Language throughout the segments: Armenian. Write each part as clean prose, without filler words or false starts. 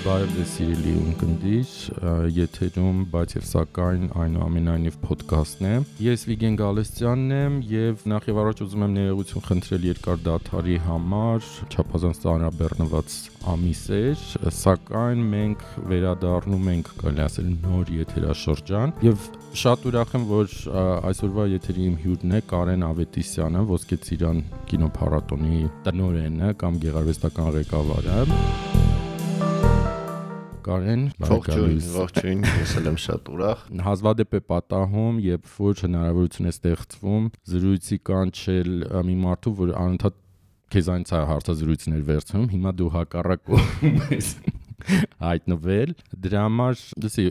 Բարև ձեզ սիրելի ունկնդիր, եթերում բայց եւ սակայն այնուամենայնիվ ոդքասթն է։ Ես Վիգեն Գալստյանն եմ եւ նախ եւ առաջ ուզում եմ ներողություն խնդրել երկար դադարի համար, չափազանց ծանրաբեռնված ամիս էր, սակայն մենք վերադառնում ենք, կարելի ասել, նոր եթերաշրջան եւ շատ ուրախ եմ, որ այսօրվա եթերի իմ հյուրն է Կարեն Ավետիսյանը, Ոսկե Ծիրան կինոփառատոնի տնօրենը կամ գեղարվեստական ղեկավարը։ Կարեն, ողջույն, ես եմ շատ ուրախ։ Հազվադեպ է պատահում, երբ որ հնարավորություն է ստեղծվում զրույցի կանչել մի մարդու, որ անընդհատ քեզանից է հարցազրույցներ վերցնում, հիմա դու հակառակում ես հայտնվել։ Դրա համար, լսի,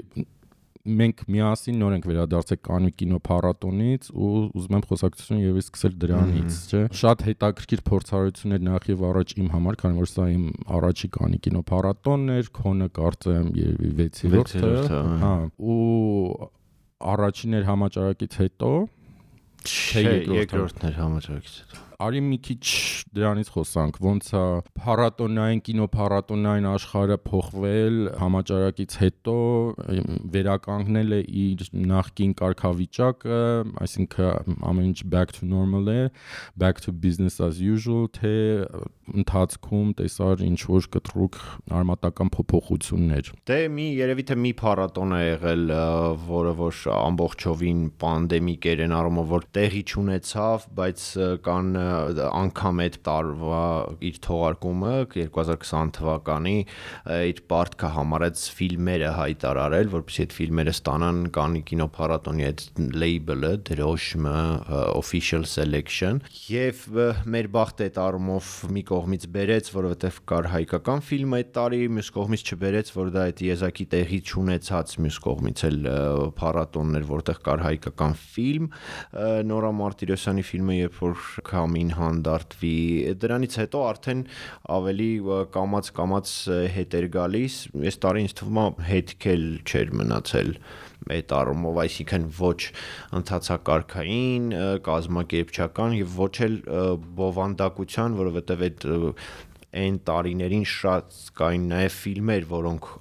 մենք միասին նոր ենք վերադարձել Կաննի կինոփառատոնից ու ուզում եմ խոսակցությունը եւս սկսել դրանից, չէ՞։ Շատ հետաքրքիր փորձառություններ նախ եւ առաջ իմ համար, քանի որ սա իմ առաջի Կաննի կինոփառատոնն էր, քոնը կարծեմ 6-րդը, հա, ու առաջին էր համաճարակից հետո, չէ, երկրորդն էր համաճարակից հետո։ Արի մի քիչ դրանից խոսանք, ոնց է փառատոնային կինոփառատոնային աշխարհը փոխվել համաճարակից հետո, վերականգնել է իր նախկին կարգավիճակը, այսինքն ամեն ինչ back to normal է, back to business as usual, թե ընթացքում տեսար ինչ որ կտրուկ արմատական փոփոխություններ։ Դե երևի թե մի փառատոն է եղել, որը որ ամբողջովին պանդեմիկ էր այն առումով, որ տեղի չունեցավ, բայց կան անգամ այդ տարվա իր թողարկումը 2020 թվականի իր պարտքը համարեց ֆիլմերը հայտարարել, որպեսզի այդ ֆիլմերը ստանան Կաննի կինոփառատոնի այդ label-ը, դրոշմը, official selection, եւ մեր բախտը այդ առումով մի կողմից բերեց, որովհետեւ կար հայկական ֆիլմ այդ տարի, մյուս կողմից չբերեց, որ դա այդ եզակի տեղի չունեցած, մյուս կողմից էլ փառատոններ, որտեղ կար հայկական ֆիլմ, Նորա Մարտիրոսյանի ֆիլմը, երբ որ Քամին հանդարտվի, դրանից հետո արդեն ավելի կամաց հետ էր գալիս, այս տարի ինձ թվում է հետք էլ չէր մնացել այդ առումով, այսինքն ոչ ընթացակարգային, կազմակերպչական եւ ոչ էլ բովանդակության, որովհետեւ այն տարիներին շատ կային նաեւ ֆիլմեր, որոնք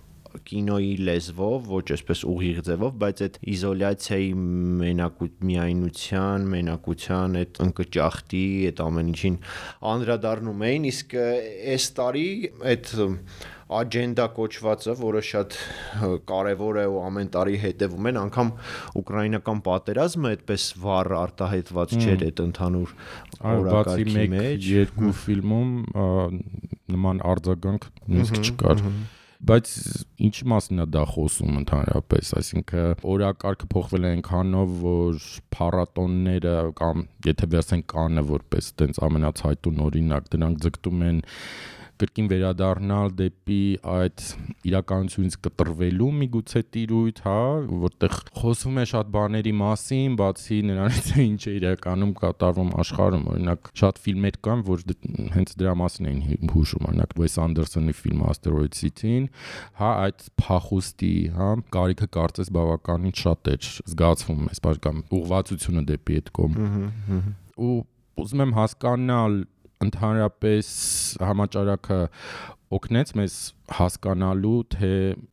կինոյի լեզվով, ոչ այսպես ուղիղ ձևով, բայց այդ իզոլյացիայի միայնության, մենակության, այդ ընկճախտի, այդ ամեն ինչին անդրադառնում էին, իսկ այս տարի այդ աջենդա կոչվածը, որը շատ կարևոր է ու ամեն տարի հետևում են, անգամ ուկրաինական պատերազմը այդպես վառ արտահայտված չէր այդ ընդհանուր օրակարգի մեջ, երկու ֆիլմում նման արձագանք նույնիսկ չկար։ Բայց ինչի մասին է դա խոսում ընդհանրապես, այսինքն օրակարգը փոխվել է այնքանով, որ փառատոնները կամ եթե վերցնենք Կաննը որպես տենց ամենացայտուն օրինակ, դրանք ձգտում են կրկին վերադառնալ դեպի այդ իրականությունից կտրվելու միգուցե տիրույթ, հա, որտեղ խոսվում է շատ բաների մասին, բացի նրանից ինչ է իրականում կատարվում աշխարհում, օրինակ շատ ֆիլմեր կան, որ հենց դրա մասին էին հուշում, օրինակ Wes Anderson-ի ֆիլմը Asteroid City-ին, հա, այդ փախուստի, հա, կարիքը կարծես բավականին շատ էր զգացվում, այսպես կամ ուղղվածությունը դեպի այդ կողմ։ Ու ուզում եմ հասկանալ ընդհանրապես համաճարակը օգնեց մեզ հասկանալու, թե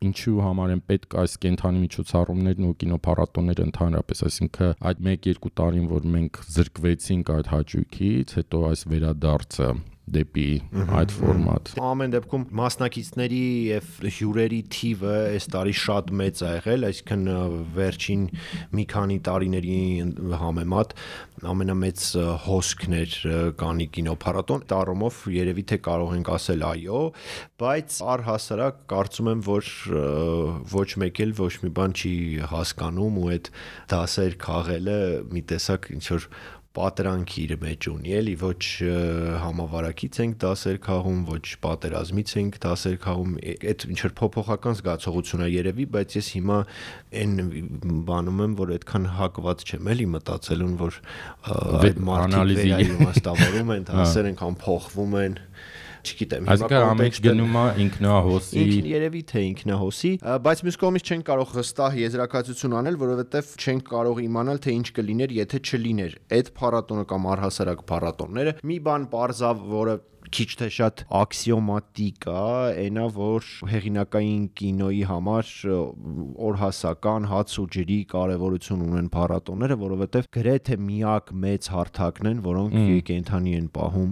ինչու համար են պետք այս կենթանի միջոցառումներն ու կինոփառատոնները ընդհանրապես, այսինքն այդ 1-2 տարին, որ մենք զրկվեցինք այդ հաճույքից, հետո այս վերադարձը դեպի այդ ֆորմատ։ Ամեն դեպքում մասնակիցների եւ հյուրերի թիվը այս տարի շատ մեծ է եղել, այսինքն վերջին մի քանի տարիների համեմատ ամենամեծ հոսքն էր Կաննի կինոփառատոն, դառումով երևի թե կարող ենք ասել այո, բայց առհասարակ կարծում եմ, որ ոչ մեկ էլ ոչ մի բան չի հասկանում ու այդ դասեր քաղելը մի տեսակ ինչ որ պատրանքի իր մեջ ունի, էլի ոչ համավարակից ենք դասեր քաղում, ոչ պատերազմից ենք դասեր քաղում, այդ ինչ որ փոփոխական զգացողություն է երևի, բայց ես հիմա այն բանում եմ, որ այդքան հակված չեմ էլի մտածելուն, որ այդ մարդիկ վերաիմաստավորում են, դասեր անգամ փոխվում են, չգիտեմ, հիմա ամեն ինչ գնում է ինքնահոսի, երևի թե ինքնահոսի, բայց մյուս կողմից չենք կարող հստակ եզրակացություն անել, որովհետև չենք կարող իմանալ, թե ինչ կլիներ, եթե չլիներ այդ փառատոնը կամ առհասարակ փառատոնները։ Մի բան պարզավ, որը քիչ թե շատ աքսիոմատիկ է, այնա որ հեղինակային կինոյի համար օրհասական հաց ու ջրի կարևորություն ունեն փառատոները, որովհետև գրեթե միակ մեծ հարթակն են, որոնք կենդանի են պահում։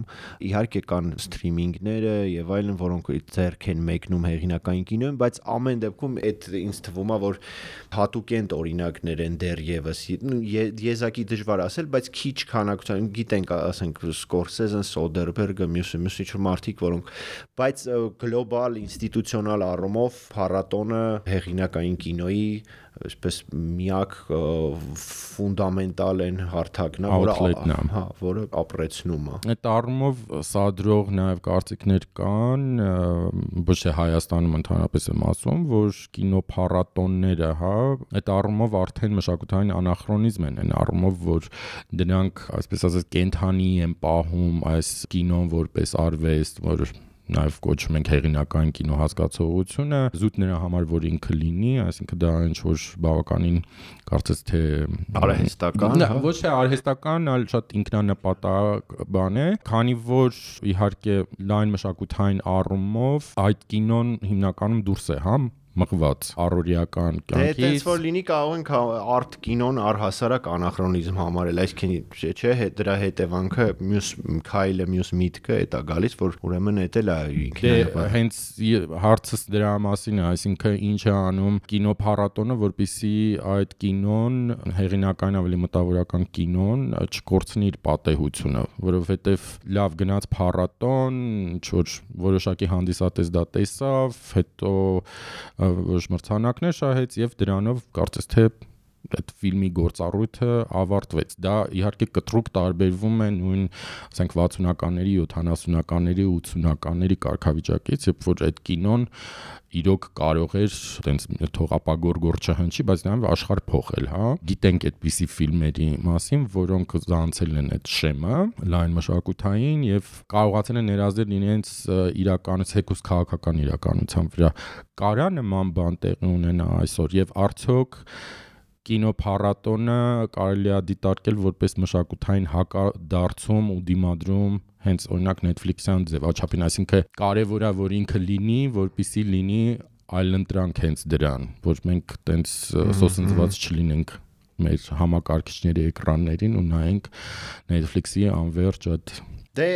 Իհարկե կան սթրիմինգները եւ այլն, որոնք ձեռք են մեկնում հեղինակային կինոյին, բայց ամեն դեպքում այդ ինձ թվում է, որ հատուկենտ օրինակներ են դեռևս, եզակի դժվար ասել, բայց քիչ քանակությամբ գիտենք, ասենք Սկորսեզեն, Սոդերբերգը, մյուս ինչ-որ մարդիկ, որոնք, բայց գլոբալ ինստիտուցիոնալ առումով փառատոնը հեղինակային կինոյի այսպես միակ ֆունդամենտալ են հարթակն է, որը ապրեցնում է։ Այդ առումով սադրող նաև կարծիքներ կան, ոչ թե Հայաստանում ընդհանրապես եմ ասում, որ կինոփառատոնները, այդ առումով արդեն մշակութային անախրոնիզմ են, այն առումով, որ դրանք, այսպես ասած, կենդանի են պահում այս կինոն որպես արվեստ, որ նաև կոչում ենք հեղինակային կինո հասկացողությունը, զուտ նրա համար, որ ինքը լինի, այսինքն դա ինչ-որ բավականին կարծես թե արհեստական, ոչ թե արհեստական, այլ շատ ինքնանպատակ բան է, քանի որ իհարկե լայն մշակութային առումով այդ կինոն հիմնականում դուրս է, մղված առօրյական կյանքից։ Դե այդպես որ լինի կարող ենք արտ կինոն առհասարակ անախրոնիզմ համարել, այսինքն չէ, դրա հետևանքը մյուս քայլը, մյուս միտքը է դա գալիս, որ ուրեմն էդ էլ է ինքնին։ Հենց հարցս դրա մասին է, այսինքն ինչ է անում կինոփառատոնը, որպեսզի այդ կինոն, հեղինակային ավելի մտավորական կինոն չկորցնի իր պատեհությունը, որովհետև լավ գնաց փառատոն, ինչ-որ որոշակի հանդիսատես դա տեսավ, հետո ոչ մրցանակներ շահեց եւ դրանով կարծես թե այդ ֆիլմի գործառույթը ավարտվեց։ Դա իհարկե կտրուկ տարբերվում է նույն, ասենք 60-ականների, 70-ականների, 80-ականների կարգավիճակից, երբ որ այդ կինոն իրոք կարող էր այտենց թողապագորգոր չհնչի, բայց նաև աշխարհ փոխել, Գիտենք այդպիսի ֆիլմերի մասին, որոնք զանցել են այդ շեմը լայն մշակութային եւ կարողացել են ներազդել իրենց իրականից հեկուս քաղաքական իրականության վրա։ Կարա նման բան տեղի ունենա այսօր եւ արդյոք կինոփառատոնը կարելի է դիտարկել որպես մշակութային հակադարձում ու դիմադրում հենց օրինակ Netflix-յան ձևաչափին, այսինքն կարևոր է որ ինքը լինի, որպեսզի լինի այլընտրանք հենց դրան, որ մենք տենց սոսնձված չլինենք մեր համակարգիչների էկրաններին ու նայենք Netflix-ի անվերջ այդ Դե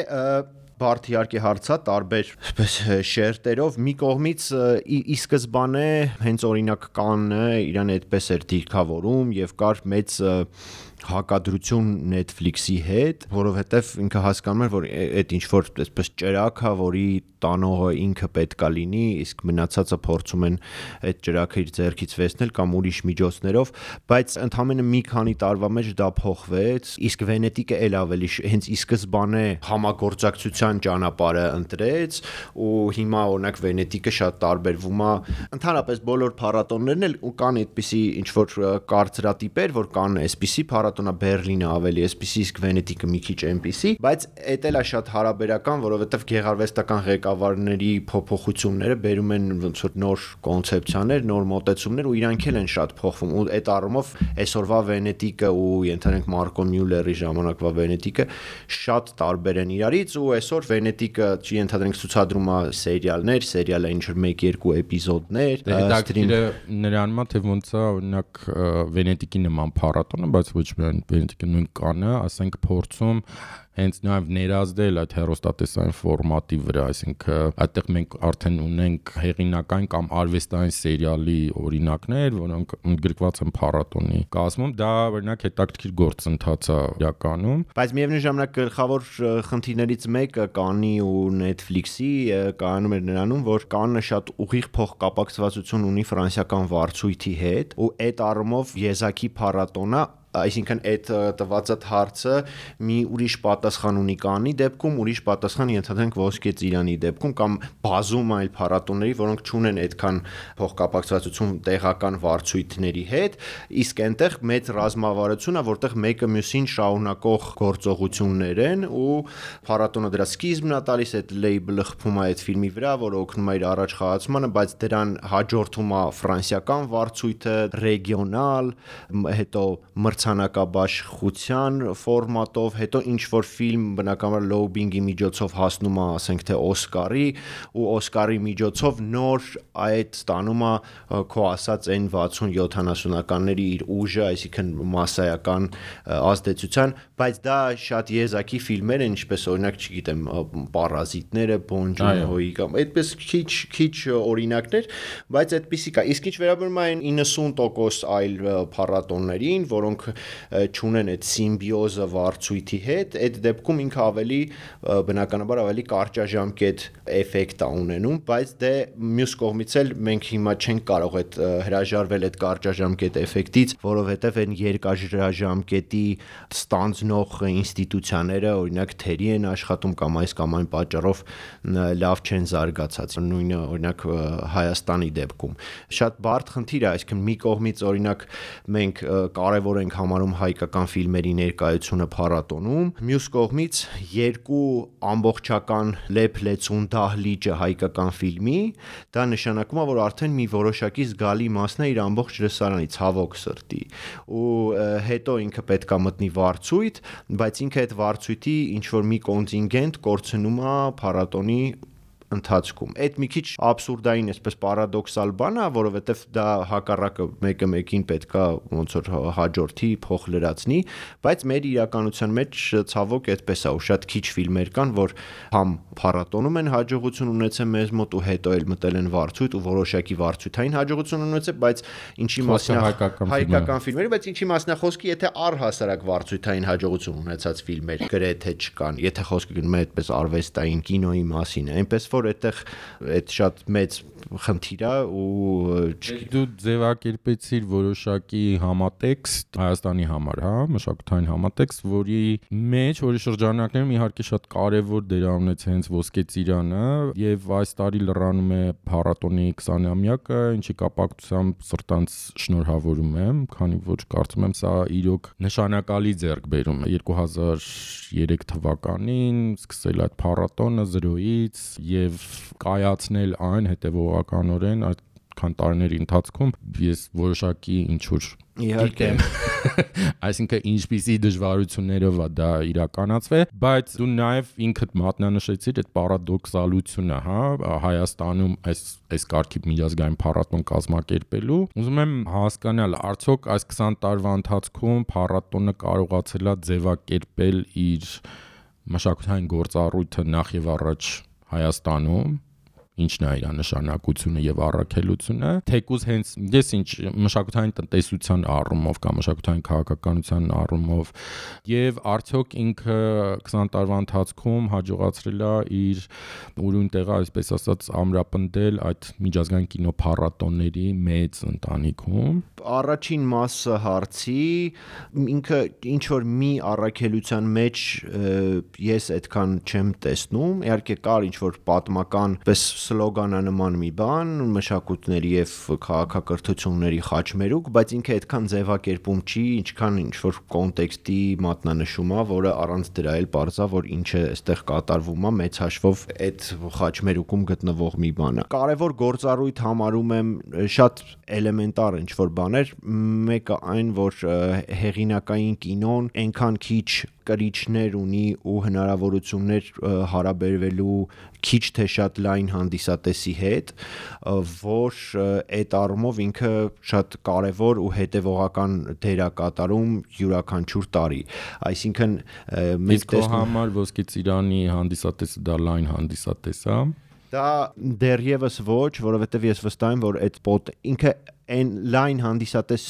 բարդ իհարկե հարցա տարբեր այսպես շերտերով մի կողմից ի սկզբանե հենց օրինակ Կաննը իրան այդպես էր դիրքավորում եւ կար մեծ հակադրություն Netflix-ի հետ, որովհետև ինքը հասկանում էր, որ այդ ինչ որ այսպես ճրակ է, որի տանողը ինքը պետքա լինի, իսկ մնացածը փորձում են այդ ճրակը իր ձեռքից վերցնել կամ ուրիշ միջոցներով, բայց ընդամենը մի քանի տարվա մեջ դա փոխվեց, իսկ Վենետիկը էլ ավելի հենց ի սկզբանե համագործակցության ճանապարհը ընտրեց ու հիմա օրինակ Վենետիկը շատ տարբերվում է, ընդհանրապես բոլոր փառատոններն էլ ու կան այդպիսի ինչ որ կարծրատիպեր, որ կան այսպիսի փառատոնը Բերլինը ավելի էսպիսի, իսկ Վենետիկը մի քիչ այնպիսի, բայց էդ էլ է շատ հարաբերական, որովհետև գեղարվեստական ղեկավարների փոփոխությունները բերում են ոնց որ նոր կոնցեպցիաներ, նոր մոտեցումներ ու իրանք էլ են շատ փոխվում ու այդ առումով այսօրվա Վենետիկը ու ենթադրենք Մարկո Մյուլլերի ժամանակվա Վենետիկը շատ տարբեր են իրարից ու այսօր Վենետիկը ենթադրենք ցուցադրում է սերիալներ, սերիալը ինչ որ 1-2 էպիզոդներ, սթրիմը նրան մա թե ոնց է օրինակ Վենետիկի նման փառատոնը, բայց ոչ Վենետիկը նույն Կաննը, ասենք փորձում հենց նաև ներազդել այդ հեռուստատեսային ֆորմատի վրա, այսինքն այդտեղ մենք արդեն ունենք հեղինակային կամ արվեստային սերիալի օրինակներ, որոնք ընդգրկված են փառատոնի կազմում, դա օրինակ հետաքրքիր գործընթաց է իրականում, բայց միևնույն ժամանակ գլխավոր խնդիրներից մեկը Կաննի ու Netflix-ի կայանում էր նրանում, որ Կաննը շատ ուղիղ փոխկապակցվածություն ունի ֆրանսիական վարձույթի հետ ու այդ առումով եզակի փառատոնը այսինքն այդ տված հարցը մի ուրիշ պատասխան ունի Կաննի դեպքում, ուրիշ պատասխան ենթադրենք Ոսկե ծիրանի դեպքում կամ բազում այլ փառատոների, որոնք չունեն այդքան փոխկապակցվածություն տեղական վարձույթների հետ, իսկ այնտեղ մեծ ռազմավարություն է, որտեղ մեկը մյուսին շարունակող գործողություններ են ու փառատոնը դրա սկիզբն է տալիս, այդ լեյբլը խփում է այդ ֆիլմի վրա, որը օգնում է իր առաջ խաղացմանը, բայց դրան հաջորդում է ֆրանսիական վարձույթը, ռեգիոնալ, հետո մրցանակաբաշխության ֆորմատով, հետո ինչ որ ֆիլմ բնականաբար լոուբինգի միջոցով հասնում է, ասենք թե Օսկարի, ու Օսկարի միջոցով նոր այդ ստանում է քո ասած այն 60-70-ականների իր ուժը, այսինքն մասսայական ազդեցության, բայց դա շատ եզակի ֆիլմեր են, ինչպես օրինակ, չգիտեմ, Պարազիտները, Բոն Ջոն-հոյի կամ այդպես քիչ օրինակներ, բայց այդպեսի կա։ Իսկ ինչ վերաբերում է այն 90% այլ փառատոներին, որոնք չունեն այդ սիմբիոզը վարձույթի հետ, այդ դեպքում ինքը ավելի բնականաբար ավելի կարճաժամկետ էֆեկտ է ունենում, բայց դե մյուս կողմից էլ մենք հիմա չենք կարող այդ հրաժարվել այդ կարճաժամկետ էֆեկտից, որովհետև այն երկարաժամկետի ստանձնող ինստիտուցիաները, օրինակ թերի են աշխատում կամ այս կամ այն պատճառով լավ չեն զարգացած։ Նույնը օրինակ Հայաստանի դեպքում շատ բարդ խնդիր է, այսինքն մի կողմից օրինակ մենք կարևոր ենք համարում հայկական ֆիլմերի ներկայությունը փառատոնում, մյուս կողմից երկու ամբողջական լեփ-լեցուն դահլիճը հայկական ֆիլմի, դա նշանակում է, որ արդեն մի որոշակի զգալի մասն է իր ամբողջ լսարանի, ցավոք սրտի, ու հետո ինքը պետք է մտնի վարձույթ, բայց ինքը այդ վարձույթի ինչ որ մի կոնտինգենտ կորցնում է փառատոնի ընթացքում։ Այդ մի քիչ աբսուրդային, այսպես պարադոքսալ բան է, որովհետև դա հակառակը մեկը մեկին պետքա ոնց որ հաջորդի, փոխ լրացնի, բայց մեր իրականության մեջ ցավոք այդպես է, ու շատ քիչ ֆիլմեր կան, որ համ փառատոնում են հաջողություն ունեցել մեզ մոտ ու հետո էլ մտել են վարձույթ ու որոշակի վարձույթային հաջողություն ունեցել, բայց ինչի մասն է հայկական ֆիլմերի, բայց ինչի մասն է խոսքի, եթե առհասարակ վարձույթային հաջողություն ունեցած ֆիլմեր գրեթե չկան, եթե խոսքը գնում է այդպես արվեստային կինոյի մասին, այնպես որ այդտեղ այդ շատ մեծ խնդիր է ու դու ձևակերպեցիր որոշակի համատեքստ Հայաստանի համար, հա, մշակութային համատեքստ, որի մեջ որի շրջանակներում իհարկե շատ կարևոր դեր ունեց հենց Ոսկե ծիրանը եւ այս տարի լրանում է փառատոնի 20-ամյակը, ինչի կապակցությամբ սրտանց շնորհավորում եմ, քանի որ կարծում եմ սա իրոք նշանակալի ձեռքբերում է 2003 թվականին սկսել այդ փառատոնը 0-ից եւ կայացնել այն հետևողականորեն այդքան տարիների ընթացքում ես որոշակի ինչ որ իհարկե այսինքն ինչպիսի դժվարություններով է դա իրականացվել, բայց դու նաև ինքդ մատնանշեցիր այդ պարադոքսալությունը, հա, Հայաստանում այս կարգի միջազգային փառատոն կազմակերպելու։ Ուզում եմ հասկանալ, արդյոք այս 20 տարվա ընթացքում փառատոնը կարողացել է ձևակերպել իր մշակութային գործառույթը նախ եւ առաջ Հայաստանում, ինչն է իր նշանակությունը եւ առաքելությունը, թեկուզ հենց ես ինչ մշակութային տնտեսության առումով կամ մշակութային քաղաքականության առումով եւ արդյոք ինքը 20 տարվա ընթացքում հաջողացրել է իր ուրույն տեղը, այսպես ասած, ամրապնդել այդ միջազգային կինոփառատոնների մեծ ընտանիքում։ Առաջին մասը հարցի ինքը ինչ որ մի առաքելության մեջ ես այդքան չեմ տեսնում, իհարկե կար ինչ որ պատմական պես սլոգանանման մի բան, մշակույթների եւ քաղաքակրթությունների խաչմերուկ, բայց ինքը այդքան ձևակերպում չի, ինչքան ինչ որ կոնտեքստի մատնանշում է, որը առանց դրա էլ պարզա, որ ինչը այստեղ կատարվում է, մեծ հաշվով այդ խաչմերուկում գտնվող մի բան է։ Կարևոր գործառույթ համարում եմ շատ էլեմենտար ինչ որ բաներ, մեկը այն, որ հեղինակային կինոն այնքան քիչ կրիչներ ունի ու հնարավորություններ հարաբերվելու քիչ թե շատ լայն հանդիսատեսի հետ, որ այդ առումով ինքը շատ կարևոր ու հետևողական դեր է կատարում յուրաքանչյուր տարի։ Այսինքն մենք տեսնում համար Ոսկե ծիրանի հանդիսատեսը դա լայն հանդիսատես է։ Դա դեռևս ոչ, որովհետև ես վստահ եմ, որ այդ ինքը այն լայն հանդիսատես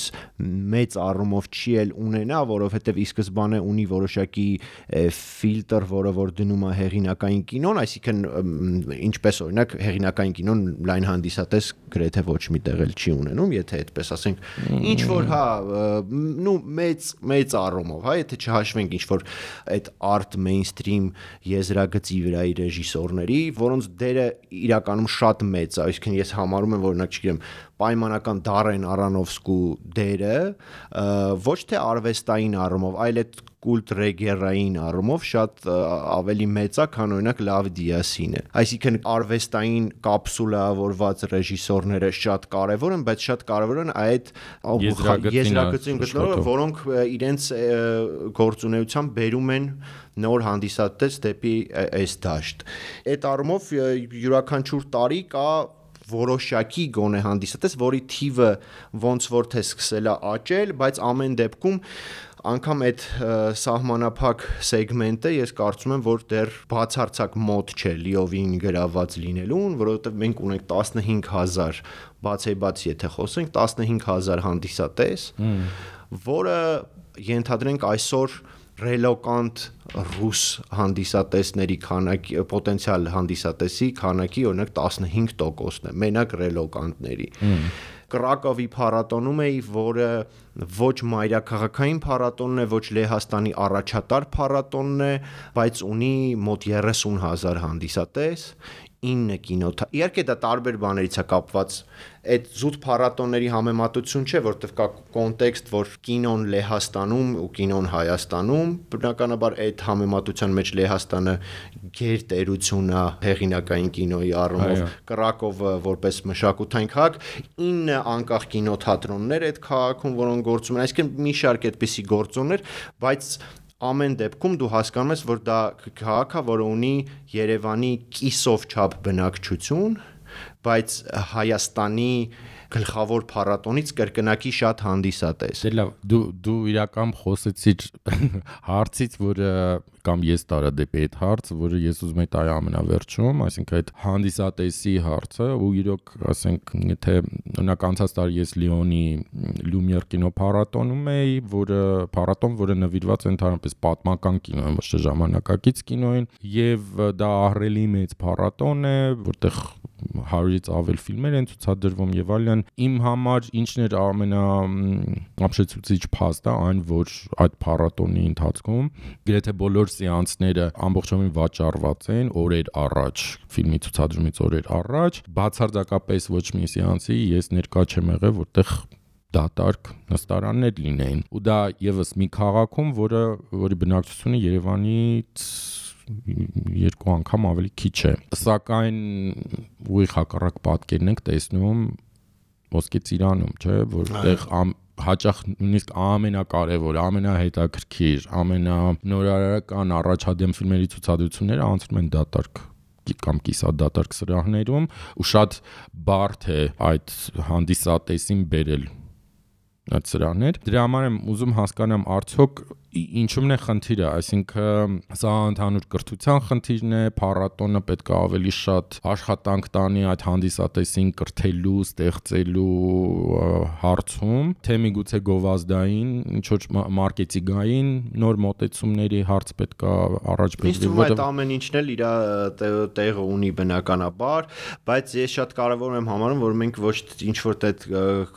մեծ առումով չի էլ ունենա, որովհետև ի սկզբանե ունի որոշակի ֆիլտր, որը որ դնում է հեղինակային կինոն, այսինքն ինչպես օրինակ հեղինակային կինոն լայն հանդիսատես գրեթե ոչ մի տեղ էլ չի ունենում, եթե այդպես ասենք, ինչ որ հա, նու մեծ առումով, հա, եթե չհաշվենք ինչ որ այդ art mainstream եզրագծի վրայի ռեժիսորների, որոնց դերը իրականում շատ մեծ է, այսինքն ես համարում եմ, որ օրինակ չգիտեմ, պայմանական Դարեն Արոնոֆսկու դերը ոչ թե արվեստային առումով, այլ այդ կուլտ ռեգերային առումով շատ ավելի մեծ է, քան օրինակ Լավ Դիասինը։ Այսինքն արվեստային կապսուլավորված ռեժիսորները շատ կարևոր են, բայց շատ կարևոր են այդ եզրագծին գտնողները, որոնք իրենց գործունեությամբ բերում են նոր հանդիսատես դեպի այս դաշտ։ Այդ առումով յուրաքանչյուր տարի կա որոշակի գոնե հանդիսատես, որի թիվը ոնց որ թե սկսել է աճել, բայց ամեն դեպքում անգամ այդ սահմանափակ սեգմենտը ես կարծում եմ, որ դեռ բացարձակ մոտ չէ լիովին գրաված լինելուն, որովհետև մենք ունենք 15000 բացեբաց եթե խոսենք 15000 հանդիսատես, որը ենթադրենք այսօր ռելոկանտ ռուս հանդիսատեսների քանակի, պոտենցիալ հանդիսատեսի քանակի օրինակ 15%-ն է, մենակ ռելոկանտների։ Կրակովի փառատոնում էի, որը ոչ մայրաքաղաքային փառատոնն է, ոչ Լեհաստանի առաջատար փառատոնն է, բայց ունի մոտ 30000 հանդիսատես, 9 կինոթատրոն։ Իհարկե դա տարբեր բաներից է կապված։ Այդ զուտ փառատոնների համեմատություն չէ, որտեղ կա կոնտեքստ, որ կինոն Լեհաստանում ու կինոն Հայաստանում, բնականաբար այդ համեմատության մեջ Լեհաստանը գերտերություն է հեղինակային կինոյի առումով, Կրակովը որպես մշակութային քաղաք, 9 անկախ կինոթատրոններ այդ քաղաքում, որոնք գործում են, այսինքն մի շարք այդպիսի գործոններ, բայց ամեն դեպքում դու հասկանում ես, որ դա քաղաք է, որը ունի Երևանի կիսով չափ բնակչություն, բայց Հայաստանի գլխավոր փառատոնից կրկնակի շատ հանդիսատես։ Դե լավ, դու իրական խոսեցիր հարցից, որը կամ ես տարա դեպի այդ հարցը, որը ես ուզում եի տալ ամենավերջում, այսինքն այդ հանդիսատեսի հարցը, ու իրոք, ասենք, եթե օրինակ անցած տարի ես Լիոնի Լումիեր կինոփառատոնում էի, որը նվիրված է ընդհանրապես պատմական կինոյին, ոչ թե ժամանակակից կինոյին, եւ դա ահռելի մեծ փառատոն է, որտեղ 100-ից ավել ֆիլմեր են ցուցադրվում եւ այլն։ Իմ համար ինչն էր ամենաապշեցուցիչ փաստը, այն որ այդ փառատոնի ընթացքում գրեթե բոլոր սեանսները ամբողջովին վաճառված են օրեր առաջ, ֆիլմի ցուցադրումից օրեր առաջ, բացարձակապես ոչ մի սեանսի ես ներկա չեմ եղել, որտեղ դատարկ նստարաններ լինեին։ Ու դա եւս մի քաղաքում, որի բնակչությունը Երևանից 2 անգամ ավելի քիչ է։ Սակայն ուղիղ հակառակ պատկերն ենք տեսնում Ոսկե Ծիրանում, չէ, որտեղ հաճախ նույնիսկ ամենակարևոր, ամենահետաքրքիր, ամենանորարարական առաջադեմ ֆիլմերի ցուցադրությունները անցնում են դատարկ կամ կիսադատարկ սրահներում, ու շատ բարդ է այդ հանդիսատեսին բերել այդ սրահներ։ Դրա համար եմ ուզում հասկանամ արդյոք ինչու՞մն է խնդիրը, այսինքն սա ընդհանուր կրթության խնդիրն է, փառատոնը պետք է ավելի շատ աշխատանք տանի այդ հանդիսատեսին կրթելու, ստեղծելու հարցում, թե միգուցե գովազդային, ինչ-որ մարքեթինգային նոր մոտեցումների հարց պետք է առաջ բերվի, որտեղ ամեն ինչն էլ իր տեղը ունի բնականաբար, բայց ես շատ կարևոր եմ համարում, որ մենք ոչ ինչ-որ այդ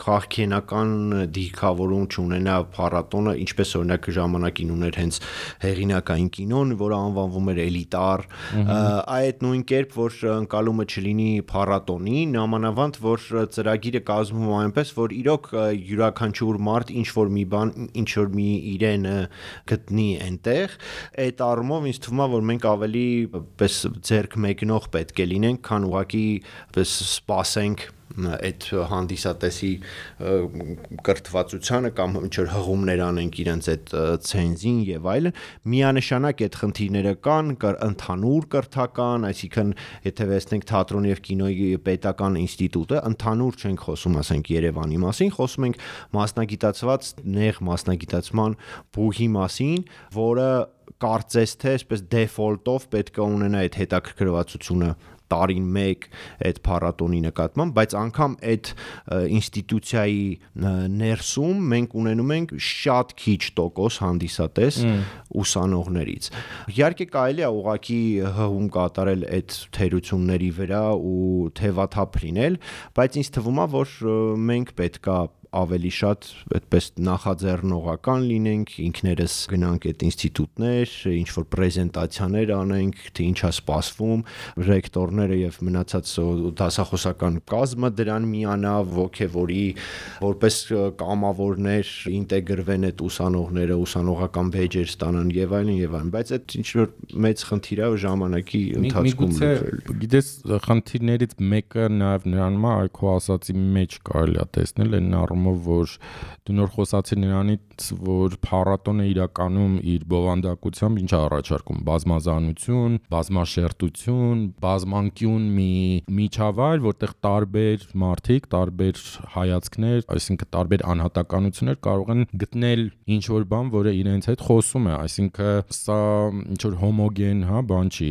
քաղաքենական դիրքավորում չունենա փառատոնը, ինչպես օրինակ ժամանակին ուներ հենց հեղինակային կինոն, որը անվանվում էր էլիտար, այդ նույն կերպ, որ ընկալումը չլինի փառատոնին, նամանավանդ, որ ծրագիրը կազմվում այնպես, որ իրոք յուրաքանչյուր մարդ ինչ-որ մի բան, ինչ-որ մի իրենը գտնի այնտեղ, այդ առումով ինձ թվում է, որ մենք ավելի պես ձեռք մեկնող պետք է լինենք, քան ուղղակի պես սպասենք այդ հանդիսատեսի կրթվածությանը կամ ինչ-որ հղումներ անենք իրենց այդ ցենզին եւ այլն, միանշանակ այդ խնդիրները կան, ընդհանուր կրթական, այսինքն եթե վերցնենք թատրոնի եւ կինոյի պետական ինստիտուտը, ընդհանուր չենք խոսում, ասենք Երևանի մասին, խոսում ենք մասնագիտացված նեղ մասնագիտացման բուհի մասին, որը կարծես թե այսպես դեֆոլտով պետք է ունենա այդ հետաքրքրվածությունը տարին մեկ այդ փառատոնի նկատմամբ, բայց անգամ այդ ինստիտուցիայի ներսում մենք ունենում ենք շատ քիչ տոկոս հանդիսատես ուսանողներից։ Իհարկե կարելի է ուղղակի հղում կատարել այդ թերությունների վրա ու թևաթափ լինել, բայց ինձ թվում է, որ մենք պետք է ավելի շատ այդպես նախաձեռնողական լինենք, ինքներս գնանք այդ ինստիտուտներ, ինչ որ պրեզենտացիաներ անենք, թե ինչա սպասվում, ռեկտորները եւ մնացած դասախոսական կազմը դրան միանա, ոգևորի, որպես կամավորներ ինտեգրվեն այդ ուսանողները, ուսանողական բեջեր ստանան եւ այլն, բայց այդ ինչ որ մեծ խնդիր է ժամանակի ընթացքում լուծել։ Գիտես, խնդիրներից մեկը նաեւ նրանում է, այ քո ասացի մեջ կարելի է տեսնել այն առումով, որ դու նոր խոսացի նրանից, որ փառատոնը իրականում իր բովանդակությամբ ինչ է առաջարկում, բազմազանություն, բազմաշերտություն, բազմանկյուն մի միջավայր, որտեղ տարբեր մարդիկ, տարբեր հայացքներ, այսինքն տարբեր անհատականություններ կարող են գտնել ինչ որ բան, որը իրենց հետ խոսում է, այսինքն սա ինչ որ հոմոգեն, հա, բան չի,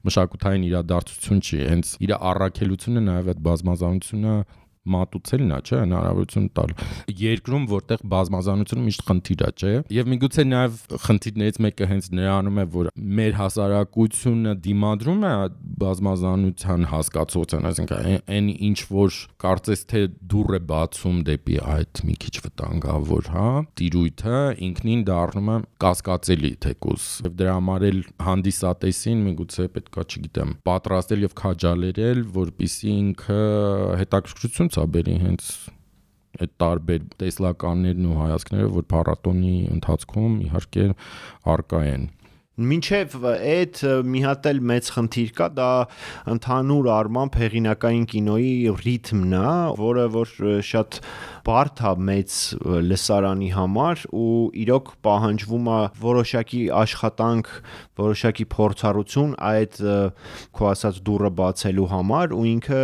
մշակութային իրադարձություն չի, հենց իր առաքելությունը նաև այդ բազմազանությունը մատուցելն է, չէ, հնարավորություն տալ։ Երկրում, որտեղ բազմազանությունը միշտ խնդիր է, չէ։ Եվ միգուցե նաև խնդիրներից մեկը հենց նրանում է, որ մեր հասարակությունը դիմադրում է բազմազանության հասկացության, այսինքն այն ինչ որ կարծես թե դուռ է բացում դեպի այդ մի քիչ վտանգավոր, հա, տիրույթը ինքնին դառնում է կասկածելի թեկուզ։ Եվ դրա համար էլ հանդիսատեսին միգուցե պետքա, չգիտեմ, պատրաստել եւ քաջալերել, որպեսզի ինքը հետաքրքրություն բերի հենց այդ տարբեր տեսլականներն ու հայացքները, որ փառատոնի ընթացքում իհարկե առկա են։ Մինչև այդ մի հատ էլ մեծ խնդիր կա, դա ընդհանուր առմամբ հեղինակային կինոյի ռիթմն է, որը որ շատ բարդ է մեծ լսարանի համար ու իրոք պահանջվում է որոշակի աշխատանք, որոշակի փորձառություն այդ քո ասած դուռը բացելու համար ու ինքը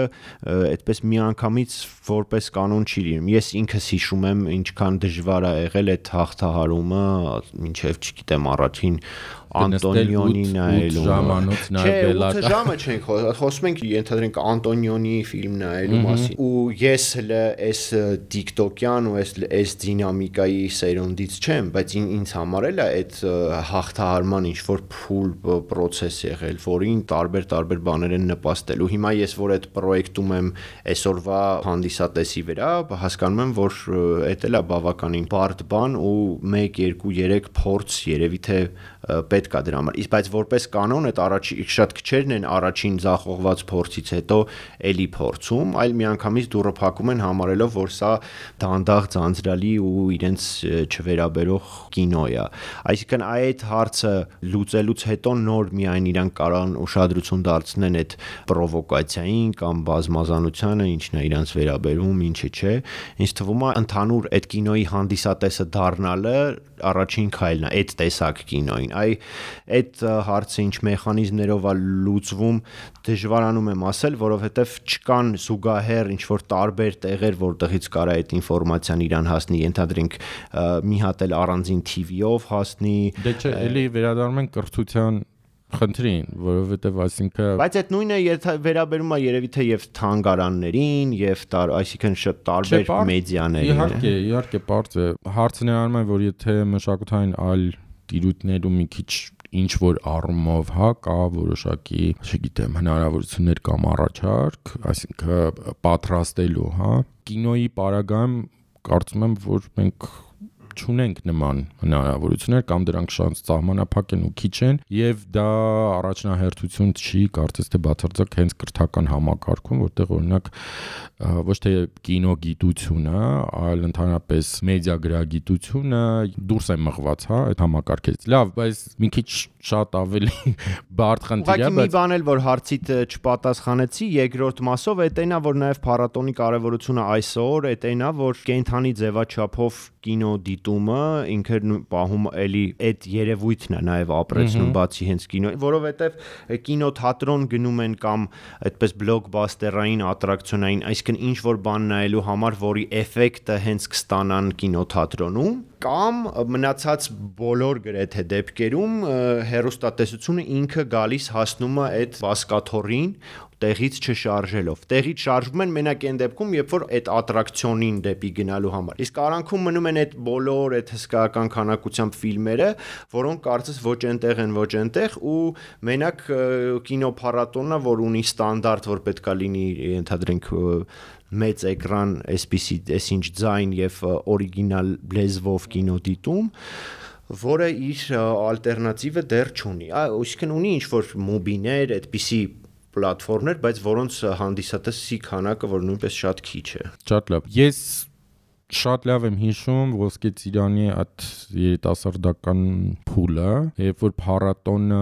այդպես միանգամից որպես կանոն չի լինում։ Ես ինքս հիշում եմ ինչքան դժվար է եղել այդ հաղթահարումը, մինչև չգիտեմ առաջին Անտոնիոնի նայելու ժամանոց նայել 8 ժամը չենք խոսում ենք ենթադրենք Անտոնիոնի ֆիլմ նայելու մասին ու ես հələ այս TikTok-յան ու այս դինամիկայի սերունդից չեմ, բայց ինձ համար էլ է այդ հաղթահարման ինչ որ փուլ process եղել, որին տարբեր բաներ են նպաստել ու հիմա ես որ այդ պրոյեկտում եմ այսօրվա հանդիսատեսի վրա, հասկանում եմ, որ այդ էլ է բավականին բարդ բան ու 1, 2, 3 փորձ երևի թե պետք է դրա համար։ Իսկ բայց որպես կանոն այդ առաջին շատ քչերն են առաջին ձախողված փորձից հետո էլի փորձում, այլ միանգամից դուռը փակում են համարելով, որ սա դանդաղ ձանձրալի ու իրենց չվերաբերող կինո է։ Այսինքն այդ հարցը լուծելուց հետո նոր միայն իրանք կարան ուշադրություն դարձնեն այդ պրովոկացիային կամ բազմազանությանը, ինչն է իրանց վերաբերում, ինչը չէ։ Ինձ թվում է ընդհանուր այդ կինոյի հանդիսատեսը դառնալը առաջին քայլն է այդ տեսակ կինոյին։ Այդ հարցը ինչ մեխանիզմներով է լուծվում, դժվարանում եմ ասել, որովհետև չկան զուգահեռ ինչ որ տարբեր տեղեր, որտեղից կարա այդ ինֆորմացիան իրան հասնի, ենթադրենք մի հատ էլ առանձին TV-ով հասնի։ Դե չէ, էլի վերադառնում են կրթության խնդրին, որովհետև այսինքն բայց այդ նույնը վերաբերում է երևի թե եւ թանգարաններին եւ այսինքն շատ տարբեր մեդիաներին։ Իհարկե, բարձ է։ Հարցը նրանում է, որ եթե մշակութային այլ տիրույթներում մի քիչ ինչ որ առումով, հա, կա որոշակի, չգիտեմ, հնարավորություններ կամ առաջարկ, այսինքն պատրաստելու, հա, կինոյի պարագայում կարծում եմ, որ մենք չունենք նման հնարավորություններ կամ դրանք շատ սահմանափակ են ու քիչ են եւ դա առաջնահերթություն չի կարծես թե բացարձակ հենց կրթական համակարգում, որտեղ օրինակ ոչ թե կինոգիտությունը, այլ ընդհանրապես մեդիագրագիտությունը դուրս է մղված, հա, այդ համակարգից։ Լավ, բայց մի քիչ շատ ավելի բարդ խնդիր է, բայց մի բան էլ որ հարցիդ չպատասխանեցի, երկրորդ մասով այդ այնա որ նաեւ փառատոնի կարեւորությունը այսօր, այդ այնա որ կենթանի ձևաչափով կինո դիտումը ինքը պահում էլի այդ երևույթն է նաև ապրեցնում բացի հենց կինո, որովհետև կինոթատրոն գնում են կամ այդպես բլոկբասթերային ատրակցիոնային, այսինքն ինչ որ բան նայելու համար, որի էֆեկտը հենց կստանան կինոթատրոնում, կամ մնացած բոլոր գրեթե դեպքերում հեռուստատեսությունը ինքը գալիս հասնում է այդ վասկաթոռին տեղից չշարժելով։ Տեղից շարժվում են մենակ այն դեպքում, երբ որ այդ ատրակցիոնին դեպի գնալու համար։ Իսկ արանքում մնում են այդ բոլոր այդ հսկայական քանակությամբ ֆիլմերը, որոնք կարծես ոչ այնտեղ են, ոչ այնտեղ ու մենակ կինոփառատոնը, որ ունի ստանդարտ, որ պետքա լինի, ենթադրենք մեծ էկրան, այսինչ ձայն եւ օրիգինալ լեզվով կինոդիտում, որը իր ալտերնատիվը դեռ չունի։ Այսինքն ունի ինչ-որ մոբիներ, այդպիսի պլատֆորմներ, բայց որոնց հանդիսատեսի քանակը, որ նույնպես շատ քիչ է։ Շատ լավ։ Ես շատ լավ եմ հիշում Ոսկե Ծիրանի այդ երիտասարդական փուլը, երբ որ փառատոնը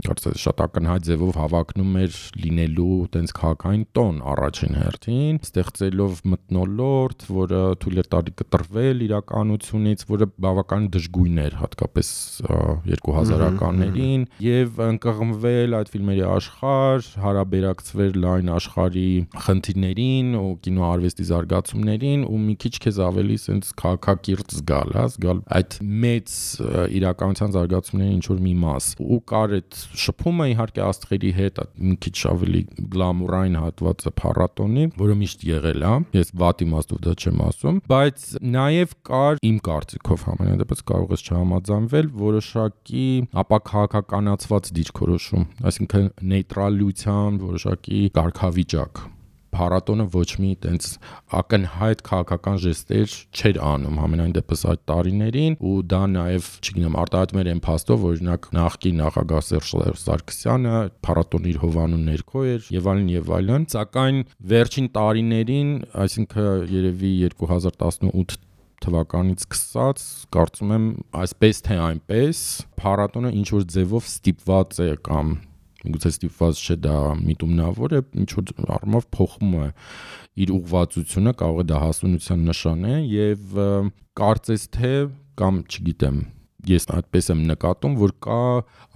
կարծես շատ ակնհայտ ձևով հավակնում էր լինելու տենց քաղաքային տոն առաջին հերթին, ստեղծելով մթնոլորտ, որը թույլ է տալի կտրվել իրականությունից, որը բավական դժգույն էր, հատկապես 2000-ականներին, եւ ընկղմվել այդ ֆիլմերի աշխարհ, հարաբերակցվել լայն աշխարհի խնդիրներին ու կինոարվեստի զարգացումներին ու մի քիչ քեզ ավելի sense քաղաքակիրթ զգալ այդ մեծ իրականության զարգացումների ինչ որ մի մաս ու կար այդ շփումը իհարկե աստղերի հետ մի քիչ ավելի գլամուրային հատվածը փառատոնի, որը միշտ եղել է, ես վատ իմաստով դա չեմ ասում, բայց նաև կար իմ կարծիքով համենայնդեպս կարող ես չհամաձայնվել որոշակի ապաքաղաքականացված դիրքորոշում, այսինքն նեյտրալության որոշակի կարգավիճակ փառատոնը ոչ մի տենց ակնհայտ քաղաքական ժեստեր չէր անում համենայն դեպս այդ տարիներին ու դա նաև, չգիտեմ, արտահայտում էր այն փաստով, օրինակ նախկին նախագահ Սերժ Սարգսյանը փառատոնի իր հովանու ներքո էր եւ այլն, սակայն վերջին տարիներին, այսինքն երևի 2018 թվականից սկսած, կարծում եմ, այսպես թե այնպես, փառատոնը ինչ որ ձևով ստիպված է կամ գուցե ստիպված չէ դա միտումնավոր է, ինչ որ առումով փոխում է իր ուղղվածությունը, կարող է դա հասունության նշան է եւ կարծես թե կամ չգիտեմ, ես այդպես եմ նկատում, որ կա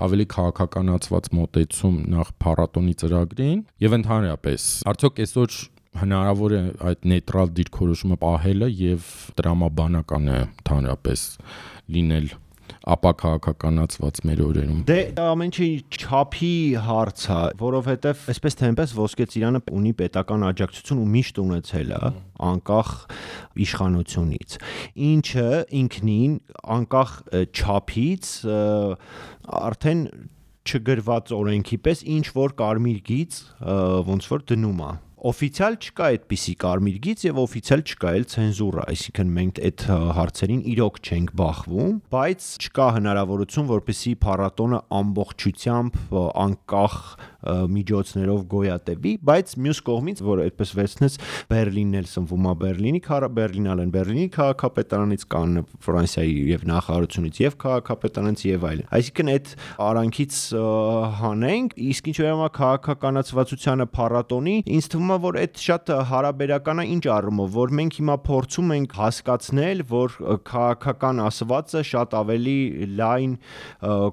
ավելի քաղաքականացված մոտեցում նախ փառատոնի ծրագրին եւ ընդհանրապես արդյոք այսօր հնարավոր է այդ նեյտրալ դիրքորոշումը պահելը եւ տրամաբանական է ընդհանրապես լինել ապաքաղաքականացված մեր օրերում։ Դե ամեն ինչի չափի հարց է, որովհետև այսպես թե այնպես Ոսկե Ծիրանը ունի պետական աջակցություն ու միշտ ունեցել է, անկախ իշխանությունից։ Ինչը ինքնին անկախ չափից արդեն չգրված օրենքի պես ինչ որ կարմիր գիծ ոնց որ դնում է։ Օֆիցիալ չկա այդպիսի կարմիր գիծ եւ օֆիցիալ չկա էլ ցենզուրա, այսինքն մենք այդ հարցերին իրոք չենք բախվում, բայց չկա հնարավորություն, որպեսզի փառատոնը ամբողջությամբ անկախ միջոցներով գոյատևի, բայց մյուս կողմից, որ այդպես վերցնես Բերլինն էլ սնվում է Բերլինալեն Բերլինի քաղաքապետարանից կան Ֆրանսիայի եւ նախարարությունից եւ քաղաքապետարանից եւ այլն։ Այսինքն այդ արանքից հանենք, իսկ ինչ վերաբերում է քաղաքականացվածությանը փառատոնի, ինձ թվում է, որ այդ շատ հարաբերական է ինչ առումով, որ մենք հիմա փորձում ենք հասկացնել, որ քաղաքական ասվածը շատ ավելի լայն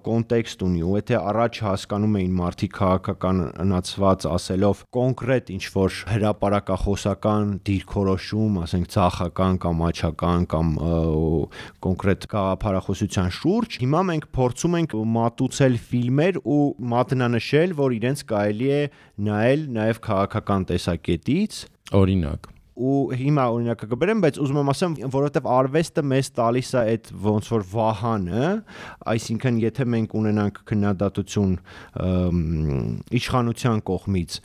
կոնտեքստ ունի, ու եթե առաջ հասկանում էին մարդիկ քաղաքականացված ասելով կոնկրետ ինչ որ հրապարակախոսական դիրքորոշում, ասենք ցախական կամ աչական կամ կոնկրետ գաղափարախոսության շուրջ, հիմա մենք փորձում ենք մատուցել ֆիլմեր ու մատնանշել, որ իրենց կարելի է նայել նաև քաղաքական տեսակետից, օրինակ ու հիմա օրինակը կբերեմ, բայց ուզում եմ ասեմ, որովհետև արվեստը մեզ տալիս է այդ ոնց որ վահանը, այսինքն եթե մենք ունենանք քննադատություն իշխանության կողմից,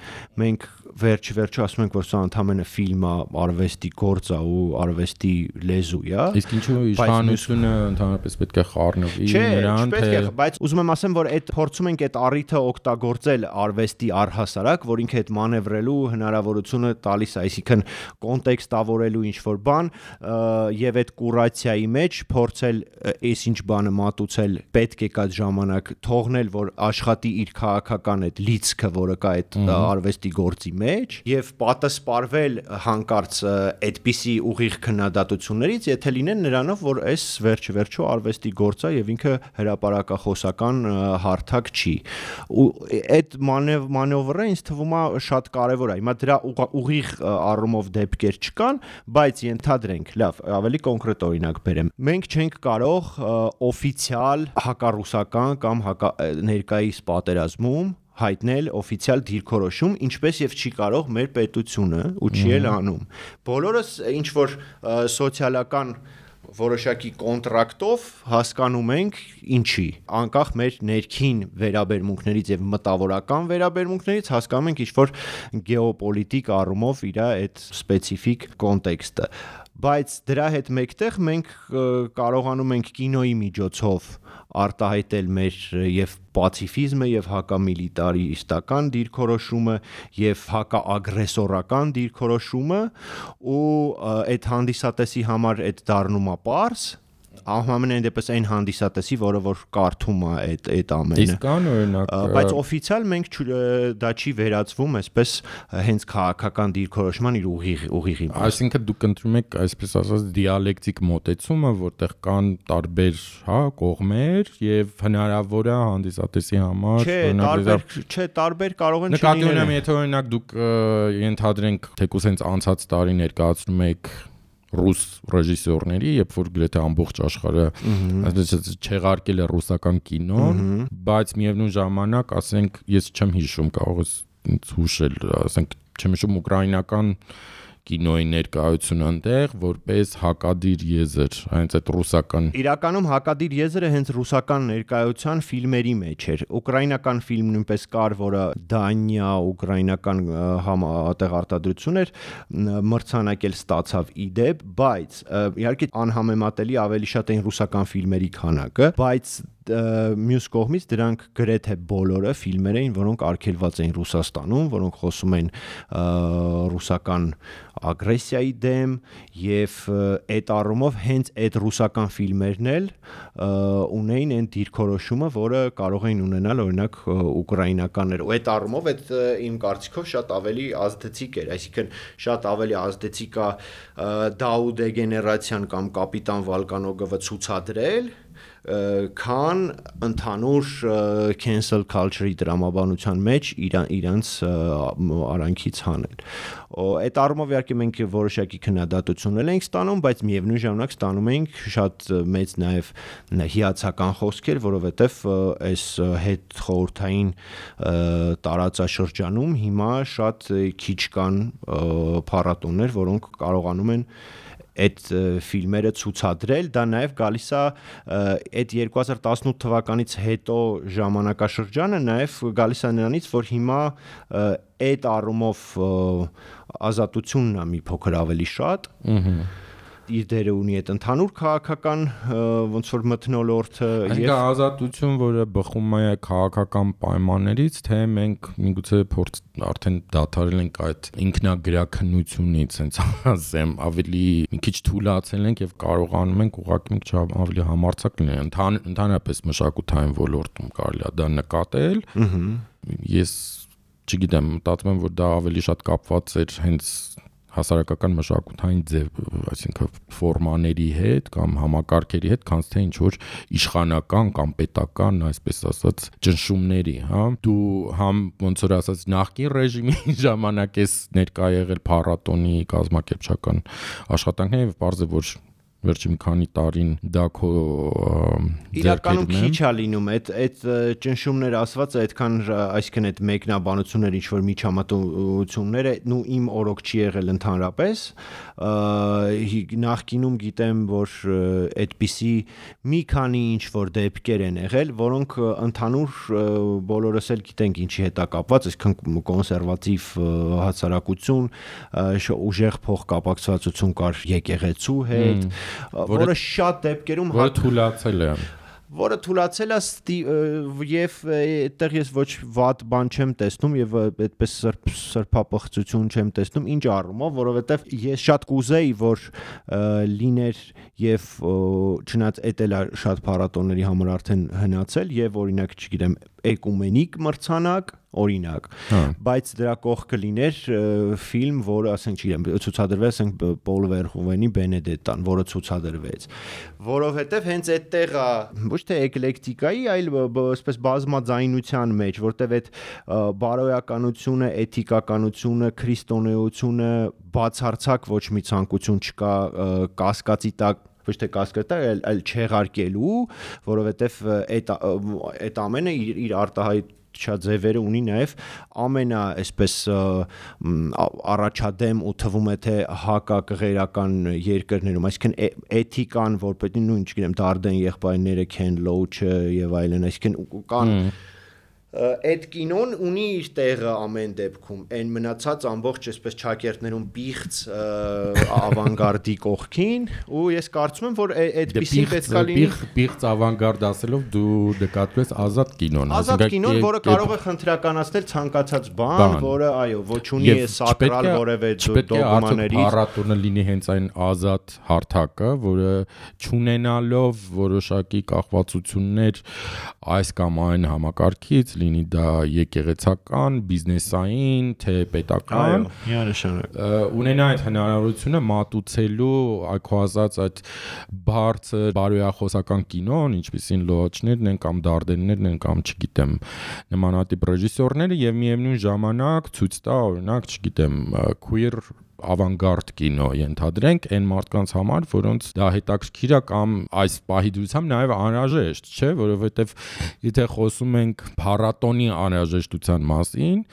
մենք վերջ-վերջո ասում ենք, որ սա ընդհանրապես ֆիլմ է, արվեստի գործ է ու արվեստի լեզու է։ Իսկ ինչու իշխանությունը ընդհանրապես պետք է խառնվի նրան, թե բայց ուզում եմ ասեմ, որ այդ փորձում ենք այդ առիթը օգտագործել արվեստի առհասարակ, որ ինքը այդ մանևրելու հնարավորությունը տալիս է, այսինքն կոնտեքստավորելու ինչ-որ բան եւ այդ կուրացիայի մեջ փորձել այսինչ բանը մատուցել պետք է կա ժամանակ թողնել, որ աշխատի իր քաղաքական այդ լիցքը, որը կա այդ արվեստի գործի մեջ եւ պատասպարվել հանկարծ այդպիսի ուղիղ քննադատություններից, եթե լինեն նրանով, որ այս վերջ-վերջո արվեստի գործ է եւ ինքը հրապարակախոսական հարթակ չի։ Ու այդ մանևրը ինձ թվում է շատ կարեւոր է։ Հիմա դրա ուղիղ առումով դեպքեր չկան, բայց ենթադրենք, լավ, ավելի կոնկրետ օրինակ բերեմ։ Մենք չենք կարող օֆիցիալ հակառուսական կամ ներկայիս պատերազմում հայտնել օֆիցիալ դիրքորոշում, ինչպես եւ չի կարող մեր պետությունը ու չի էլ անում։ Բոլորս ինչ որ սոցիալական որոշակի կոնտրակտով հասկանում ենք ինչի, անկախ մեր ներքին վերաբերմունքներից եւ մտավորական վերաբերմունքներից հասկանում ենք ինչ որ գեոպոլիտիկ առումով իր այդ սպეციფიկ կոնտեքստը, բայց դրա հետ մեկտեղ մենք կարողանում ենք կինոյի միջոցով արտահայտել մեր եւ պացիֆիզմը եւ հակամիլիտարիստական դիրքորոշումը եւ հակաագրեսորական դիրքորոշումը ու այդ հանդիսատեսի համար այդ դառնում է պարզ ամենայն դեպս այն հանդիսատեսի, որը որ կարդում է այդ ամենը։ Իսկ կան օրինակ, բայց օֆիցիալ մենք դա չի վերածվում այսպես հենց քաղաքական դիրքորոշման իր ուղիղի։ Այսինքն դուք ընտրում եք այսպես ասած դիալեկտիկ մոտեցումը, որտեղ կան տարբեր, կողմեր եւ հնարավոր է հանդիսատեսի համար տարբեր կարող են չլինել։ Նկատի ունեմ, եթե օրինակ դուք ենթադրենք թեկուզ հենց անցած տարի ներկայացնում եք ռուս ռեժիսորների, երբ որ գրեթե ամբողջ աշխարհը չեղարկել է ռուսական կինոն, բայց միևնույն ժամանակ, ասենք, ես չեմ հիշում, կարող ես հուշել, ասենք, չեմ հիշում ուկրաինական կինոյի ներկայությունը այնտեղ որպես հակադիր եզր, հենց այդ ռուսական։ Իրականում հակադիր եզրը հենց ռուսական ներկայության ֆիլմերի մեջ էր։ Ուկրաինական ֆիլմ նույնպես կար, որը Դանիա, ուկրաինական տեղարտադրություն էր, մրցանակել ստացավ իդեպ, բայց իհարկե անհամեմատելի ավելի շատ էին ռուսական ֆիլմերի քանակը, բայց մյուս կողմից դրանք գրեթե բոլորը ֆիլմեր էին, որոնք արգելված էին Ռուսաստանում, որոնք խոսում են ռուսական ագրեսիայի դեմ եւ այդ առումով հենց այդ ռուսական ֆիլմերն էլ ունեին այն դիրքորոշումը, որը կարող էին ունենալ օրինակ ուկրաինականները։ Ու այդ առումով այդ իմ կարծիքով շատ ավելի ազդեցիկ էր, այսինքն շատ ավելի ազդեցիկ է Դաուդե գեներացիան կամ կապիտան Վոլկանոգովը ցուցադրել քան ընդհանուր cancel culture-ի դրամաբանության մեջ իրանց արանքից հանել։ Այդ առումով իհարկե մենք որոշակի քննադատություններ ենք ստանում, բայց միևնույն ժամանակ ստանում ենք շատ մեծ նաև հիացական խոսքեր, որովհետև այս հետ խորհրդային տարածաշրջանում հիմա շատ քիչ կան փառատոներ, որոնք կարողանում են այդ ֆիլմերը ցուցադրել, դա նաև գալիս է այդ 2018 թվականից հետո ժամանակաշրջանը նաև գալիս է նրանից, որ հիմա այդ առումով ազատությունն է մի փոքր ավելի շատ իր դերը ունի այդ ընդհանուր քաղաքական ոնց որ մթնոլորտը եւ ազատություն, որը բխում է քաղաքական պայմաններից, թե մենք միգուցե արդեն դադարել ենք այդ ինքնագրաքննությունից, հենց ասեմ, ավելի մի քիչ թուլացել ենք եւ կարողանում ենք ուղղակի մի քիչ ավելի համարձակ լինել ընդհանրապես մշակութային ոլորտում կարելի է դա նկատել։ Ես չգիտեմ, մտածում եմ, որ դա ավելի շատ կապված էր հենց հասարակական մշակութային ձև, այսինքն ֆորմաների հետ կամ համակարգերի հետ, քան թե ինչ որ իշխանական կամ պետական, այսպես ասած, ճնշումների, հա։ Դու համ ոնց որ ասած նախկին ռեժիմի ժամանակ ես ներկա եղել փառատոնի կազմակերպչական աշխատանքներին եւ բարձր որ վերջին քանի տարին դա քո իրականում քիչ է լինում այդ ճնշումները ասված այդքան այսինքն այդ մեկնաբանությունները ինչ որ միջամտությունները ու իմ օրոք չի եղել ընդհանրապես նախկինում գիտեմ որ այդպիսի մի քանի ինչ որ դեպքեր են եղել որոնք ընդհանուր բոլորս էլ գիտենք ինչի հետ է կապված այսքան կոնսերվատիվ հասարակություն ուժեղ փոխկապակցվածություն կար եկեղեցու հետ որը շատ դեպքերում որը թուլացել է եւ այդտեղ ես ոչ վատ բան չեմ տեսնում եւ այդպես սրբապղծություն չեմ տեսնում ինչ առումով որովհետեւ ես շատ կուզեի որ լիներ եւ չնայած էդ էլ շատ փառատոների համար արդեն հնացել եւ օրինակ չգիտեմ էկումենիկ մրցանակ օրինակ բայց դրա կողքը լիներ ֆիլմ որը ասենք չգիտեմ ցուցադրվեց ասենք Պոլ Վերհովենի Բենեդետան որը ցուցադրվեց որովհետեւ հենց այդտեղ ոչ թե էկլեկտիկայի այլ այսպես բազմաձայնության մեջ որտեւ այդ բարոյականությունը էթիկականությունը քրիստոնեությունը բացարձակ ոչ մի ցանկություն չկա կասկածի տակ ոչ թե կասկածի այլ չեղարկելու որովհետեւ այդ ամենը իր ձևերը ունի նաև ամենա այսպես առաջադեմ ու թվում է թե հակակղերական երկրներում, այսինքն էթիկան, որպես նույն, չգիտեմ, Դարդեն եղբայրները, Քեն Լոուչը եւ այլն, այսինքն կան այդ կինոն ունի իր տեղը ամեն դեպքում, այն մնացած ամբողջ այսպես ճակերտներում բիղծ ավանգարդի կողքին, ու ես կարծում եմ, որ այդպիսի պետքա լինի բիղծ ավանգարդ ասելով դու նկատում ես ազատ կինոն, ազատ կինոն, որը կարող է խնդրականացնել ցանկացած բան, որը այո, ոչ ունի սակրալ որևէ դոգմաների փառատոնը լինի հենց այն ազատ հարթակը, որը չունենալով որոշակի կախվածություններ այս կամ այն համակարգից, լինի դա եկեղեցական, բիզնեսային, թե պետական, ունենա այդ հնարավորությունը մատուցելու այքո ասած այդ բարձր բարոյախոսական կինոն, ինչպիսին լոաչներն են կամ դարդեններն են կամ չգիտեմ նմանատիպ ռեժիսորները եւ միևնույն ժամանակ ցույց տա օրինակ չգիտեմ queer ավանգարդ կինո ենթադրենք այն մարդկանց համար, որոնց դա հետաքրքիր է կամ այս պահի դրությամբ նաև անհրաժեշտ, չէ, որովհետև եթե խոսում ենք փառատոնի անհրաժեշտության մասին,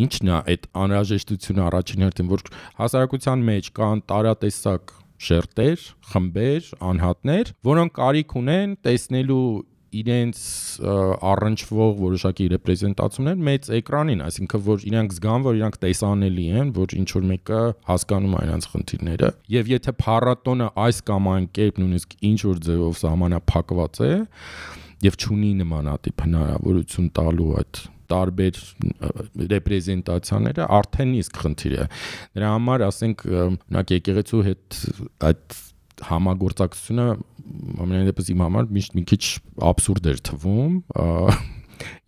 ինչն է այդ անհրաժեշտությունը առաջին հերթին, որ հասարակության մեջ կան տարատեսակ շերտեր, խմբեր, անհատներ, որոնք կարիք ունեն տեսնելու իրենց առնչվող որոշակի ռեպրեզենտացիաներ մեծ էկրանին, այսինքն որ իրանք զգան, որ իրանք տեսանելի են, որ ինչ որ մեկը հասկանում է իրանք խնդիրները, եւ եթե փառատոնը այս կամ այն կերպ նույնիսկ ինչ որ ձևով սահմանափակված է եւ չունի նմանատիպ հնարավորություն տալու այդ տարբեր ռեպրեզենտացիաները, արդեն իսկ խնդիր է։ Դրա համար ասենք օրինակ եկեղեցու հետ այդ համագործակցությունը ամենայնպես իմ համար միշտ մի քիչ աբսուրդ էր թվում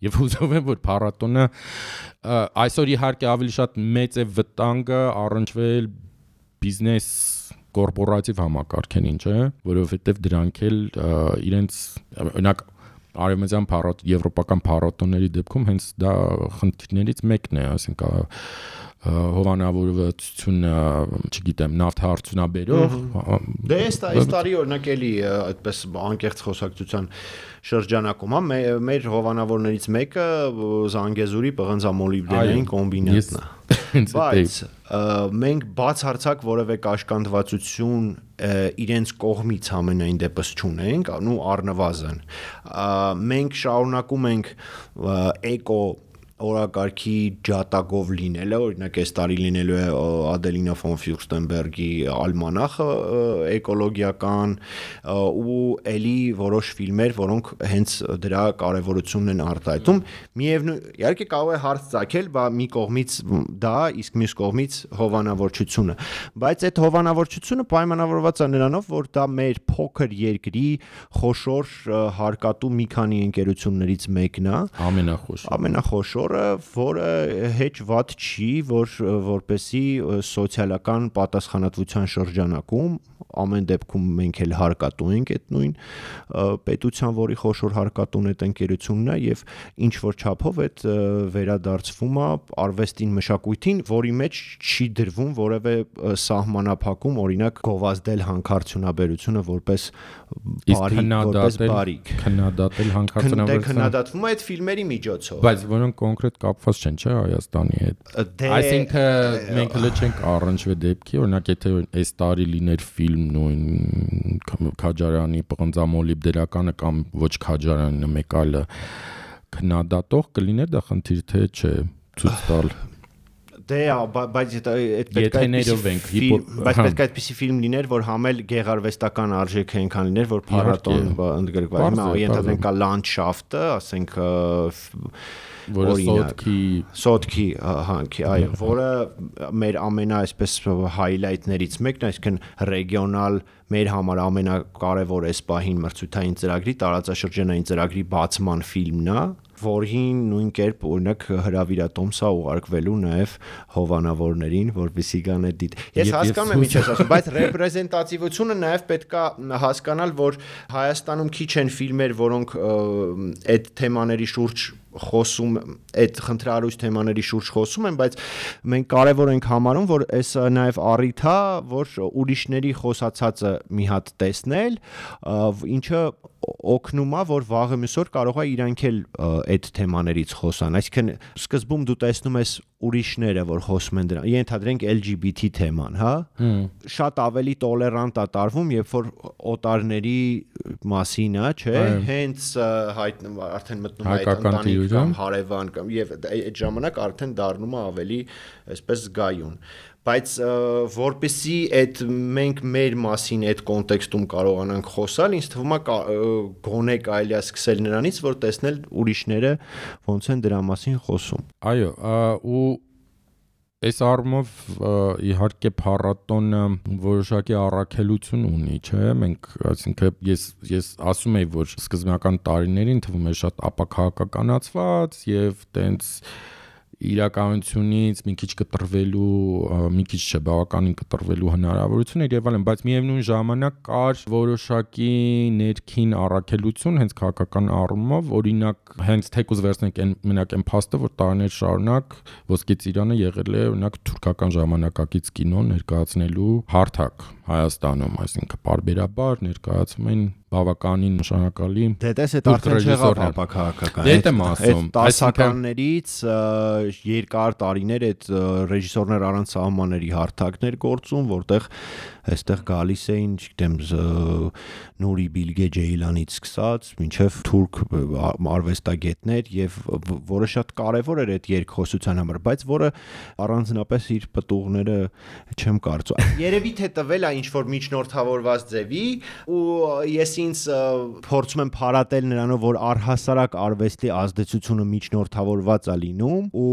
եւ հուզով եմ որ փառատոնը այսօր իհարկե ավելի շատ մեծ է վտանգը առնչվել բիզնես կորպորատիվ համակարգերին, չէ, որովհետեւ դրանք էլ իրենց օրինակ արևմտյան եվրոպական փառատոնների դեպքում հենց դա խնդիրներից մեկն է, ասենք հովանավորվածությունը, չգիտեմ, նավթարդյունաբերող դե այս տարի օրինակ էլի այդպես անկեղծ խոսակցության շրջանակում մեր հովանավորներից մեկը Զանգեզուրի պղնձամոլիբդենային կոմբինատն է, բայց մենք բացարձակ որևէ կաշկանդվածություն իրենց կողմից ամենայն դեպս չունենք, ու առնվազն մենք շարունակում ենք էկո օրակարգի ջատագով լինելը, օրինակ այս տարի լինելու է Ադելինա ֆոն Ֆյուրստենբերգի ալմանախը էկոլոգիական ու էլի որոշ ֆիլմեր, որոնք հենց դրա կարևորությունն են արտահայտում, միևնույն իհարկե կարող է հարց ծագել, բա մի կողմից դա, իսկ մյուս կողմից հովանավորչությունը, բայց այդ հովանավորչությունը պայմանավորված է նրանով, որ դա մեր փոքր երկրի խոշոր հարկատու մի քանի ընկերություններից մեկն է, ամենախոշոր որը հեչ վատ չի, որպեսի սոցիալական պատասխանատվության շրջանակում ամեն դեպքում մենք էլ հարկատու ենք այդ նույն պետության, որի խոշոր հարկատուն այդ ընկերությունն է եւ ինչ որ չափով այդ վերադարձվում է արվեստին, մշակույթին, որի մեջ չի դրվում որևէ սահմանափակում, օրինակ գովազդել հանքարդյունաբերությունը որպես բարիք, քննադատել հանքարդյունաբերությունը քննադատվում է այդ ֆիլմերի միջոցով, բայց որոնք կոնկրետ կապված չեն, չէ, Հայաստանի հետ։ Այսինքն մենք հենց չենք առնչվել դեպքի, օրինակ եթե այս տարի լիներ ֆիլմ նույն Քաջարյանի պղնձամոլիբդենականը կամ ոչ Քաջարյանը մեկ այլը քննադատող կլիներ դա խնդիր թե չէ ցույց տալ։ Դե, բայց այդ պետք է այդպիսի ֆիլմ լիներ, որ համել գեղարվեստական արժեք այնքան լիներ, որ փառատոն ընդգրկված։ Ենթադրենք կա լանդշաֆտը, ասենք Սոտքի հանքի, այո, որը մեր ամենա այսպես հայլայթներից մեկն է, այսինքն ռեգիոնալ մեր համար ամենակարևոր այս պահին մրցույթային ծրագրի, տարածաշրջանային ծրագրի բացման ֆիլմն է, որին նույն կերպ օրինակ հրավիրատոմսա ուղարկվելու նաև հովանավորներին, որպեսզի գան այդ դիտ։ Ես հասկանում եմ ինչ ես ասում, բայց ռեպրեզենտատիվությունը նաև պետք է հասկանալ, որ Հայաստանում քիչ են ֆիլմեր, որոնք այդ թեմաների շուրջ խոսում, այդ խնդրահարույց թեմաների շուրջ խոսում են, բայց մենք կարևոր ենք համարում, որ այս նաև առիթ է, որ ուրիշների խոսացածը մի հատ տեսնել, ինչը օգնում է, որ վաղը մյուսօր կարող է իրանք էլ այդ թեմաներից խոսան, այսինքն սկզբում դու տեսնում ես ուրիշները, որ խոսում են դրան, ենթադրենք LGBT թեման, հա, շատ ավելի տոլերանտ է տարվում, երբ որ օտարների մասին է, չէ, հենց արդեն մտնում է այդ ընտանիք կամ հարևան կամ եւ այդ ժամանակ արդեն դառնում է ավելի այսպես զգայուն, բայց որպեսզի այդ մենք մեր մասին այդ կոնտեքստում կարողանանք խոսալ, ինձ թվում է գոնե կարելի է սկսել նրանից, որ տեսնել ուրիշները ոնց են դրա մասին խոսում։ Այո, ու այս առումով իհարկե փառատոնը որոշակի առաքելություն ունի, չէ՞, մենք այսինքն ես ասում եի, որ սկզբնական տարիներին թվում է շատ ապաքաղաքականացված եւ տենց իրականությունից մի քիչ կտրվելու, մի քիչ չէ, բավականին կտրվելու հնարավորություն էր եւ այլն, բայց միևնույն ժամանակ կար որոշակի ներքին առաքելություն հենց քաղաքական առումով, օրինակ հենց թեկուզ վերցնենք այն մենակ այն փաստը, որ տարիներ շարունակ Ոսկե ծիրանը եղել է օրինակ թուրքական ժամանակակից կինո ներկայացնելու հարթակ Հայաստանում, այսինքն բարբերաբար ներկայացում են բավականին նշանակալի դες այդ արդեն չեղավ ապաքաղաքական այդ եմ ասում տասականներից երկար տարիներ այդ ռեժիսորներ առանց սահմանների հարթակներ գործում, որտեղ այստեղ գալիս էին, չգիտեմ, Նուրի Բիլգե Ջեյլանից սկսած մինչև թուրք արվեստագետներ եւ որը շատ կարեւոր էր այդ երկխոսության համար, բայց որը առանձնապես իր պտուղները չեմ կարծում։ Երևի թե տվել է ինչ որ միջնորդավորված ձևի ու ես ինձ փորձում եմ փարատել նրանով, որ առհասարակ արվեստի ազդեցությունը միջնորդավորված է լինում ու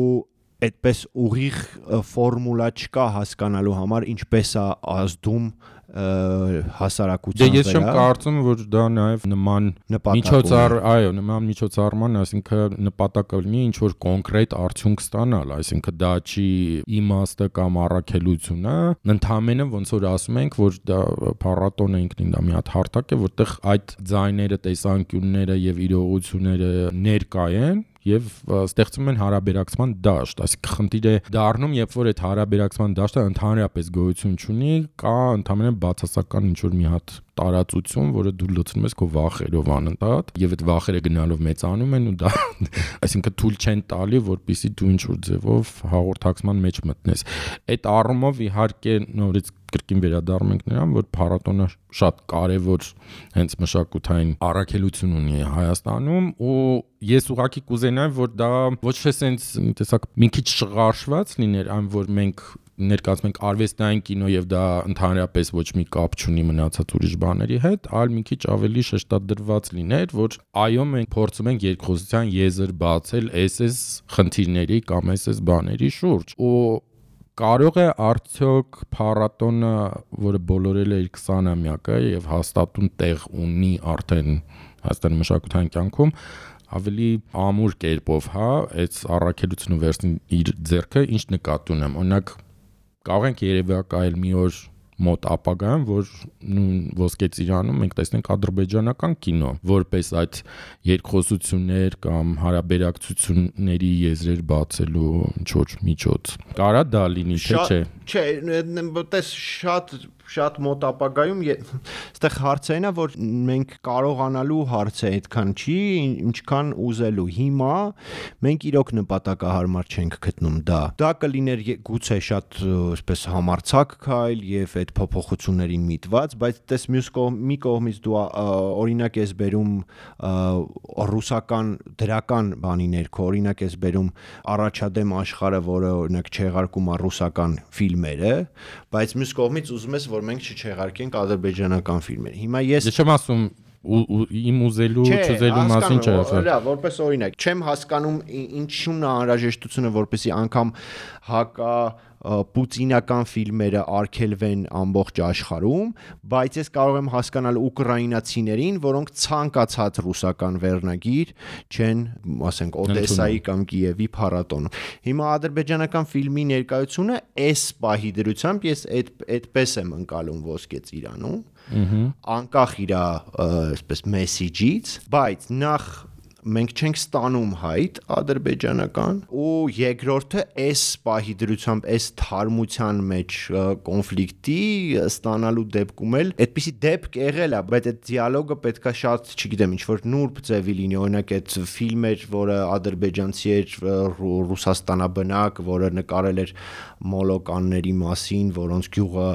այդպես ուղիղ ֆորմուլա չկա հասկանալու համար ինչպես է ազդում հասարակության վրա։ Ես չեմ կարծում, որ դա նաև նման միջոցառման, այսինքն նպատակը լինի ինչ որ կոնկրետ արդյունք ստանալ, այսինքն դա չի իմաստը կամ առաքելությունը, ընդհանրապես ոնց որ ասում ենք, որ դա փառատոնը ինքնին դա մի հատ հարթակ է, որտեղ այդ ձայները, տեսանկյունները եւ իրողությունները ներկա են եւ ստեղծում են հարաբերակցման դաշտ, այսինքն խնդիր է դառնում, երբ որ այդ հարաբերակցման դաշտը ընդհանրապես գոյություն չունի, կա ընդհանրապես բացասական ինչ որ մի հատ տարածություն, որը դու լցնում ես քո վախերով անընդհատ եւ այդ վախերը գնալով մեծանում են ու դա այսինքն թույլ չեն տալի, որպեսզի դու ինչ որ ձևով հաղորդակցման մեջ մտնես։ Այդ առումով իհարկե նորից կրկին վերադառնում ենք նրան, որ փառատոնը շատ կարևոր հենց մշակութային առաքելություն ունի Հայաստանում ու ես ուղղակի կուզենայի, որ դա ոչ թե սենց տեսակ մի քիչ շղարշված լիներ, այն որ մենք ներկայացնում ենք արվեստային կինո եւ դա ընդհանրապես ոչ մի կապ չունի մնացած ուրիշ բաների հետ, այլ մի քիչ ավելի շեշտադրված լիներ, որ այո մենք փորձում ենք երկխոսության եզր բացել այս խնդիրների կամ այս բաների շուրջ ու կարող է արդյոք փառատոնը, որը բոլորել է իր 20-ամյակը եւ հաստատուն տեղ ունի արդեն Հայաստանի մշակութային կյանքում, ավելի ամուր կերպով, հա, այս առաքելությունը վերցնի իր ձեռքը, ինչ նկատի ունեմ։ Օրինակ կարող ենք երևակայել մի օր մոտ ապագայում, որ նույն Ոսկե ծիրանում մենք տեսնենք ադրբեջանական կինո, որպես այդ երկխոսություններ կամ հարաբերակցությունների եզրեր բացելու ինչ որ միջոց։ Կարա դա լինի, թե չէ։ Չէ, տես շատ մոտ ապագայում այստեղ հարցերն է, որ մենք կարողանալու հարցը այդքան չի, ինչքան ուզելու։ Հիմա մենք իրոք նպատակահարմար չենք գտնում դա։ Դա կլիներ գուցե շատ այսպես համարձակ քայլ եւ այդ փոփոխություններին միտված, բայց տես մի կողմից դու օրինակ ես բերում ռուսական դրական բանի ներքո, օրինակ ես բերում առաջադեմ աշխարհը, որը օրինակ չեղարկում է ռուսական ֆիլմերը, բայց մյուս կողմից ուզում ես, որ մենք չեղարկենք ադրբեջանական ֆիլմեր։ Հիմա ես չեմ ասում իմ ուզելու չուզելու մասին չէ ասել։ Լավ, որպես օրինակ, չեմ հասկանում ինչու՞ն է անհրաժեշտությունը, որպեսզի անգամ հակա պուտինական ֆիլմերը արգելվեն ամբողջ աշխարհում, բայց ես կարող եմ հասկանալ ուկրաինացիներին, որոնք ցանկացած ռուսական վերնագիր չեն, ասենք, Օդեսայի կամ Կիևի փառատոնում։ Հիմա ադրբեջանական ֆիլմի ներկայությունը այս պահի դրությամբ ես այդպես եմ ընկալում Ոսկե ծիրանում, անկախ իր այսպես մեսիջից, բայց նախ մենք չենք ստանում հայտ ադրբեջանական ու երկրորդը այս պահի դրությամբ այս թարմության մեջ կոնֆլիկտի ստանալու դեպքում էլ այդպիսի դեպք եղել է, բայց այդ դիալոգը պետքա շատ, չգիտեմ, ինչ որ նուրբ ձևի լինի, օրինակ այդ ֆիլմեր, որը ադրբեջանցի էր Ռուսաստանաբնակ, որը նկարել էր մոլոկանների մասին, որոնց գյուղը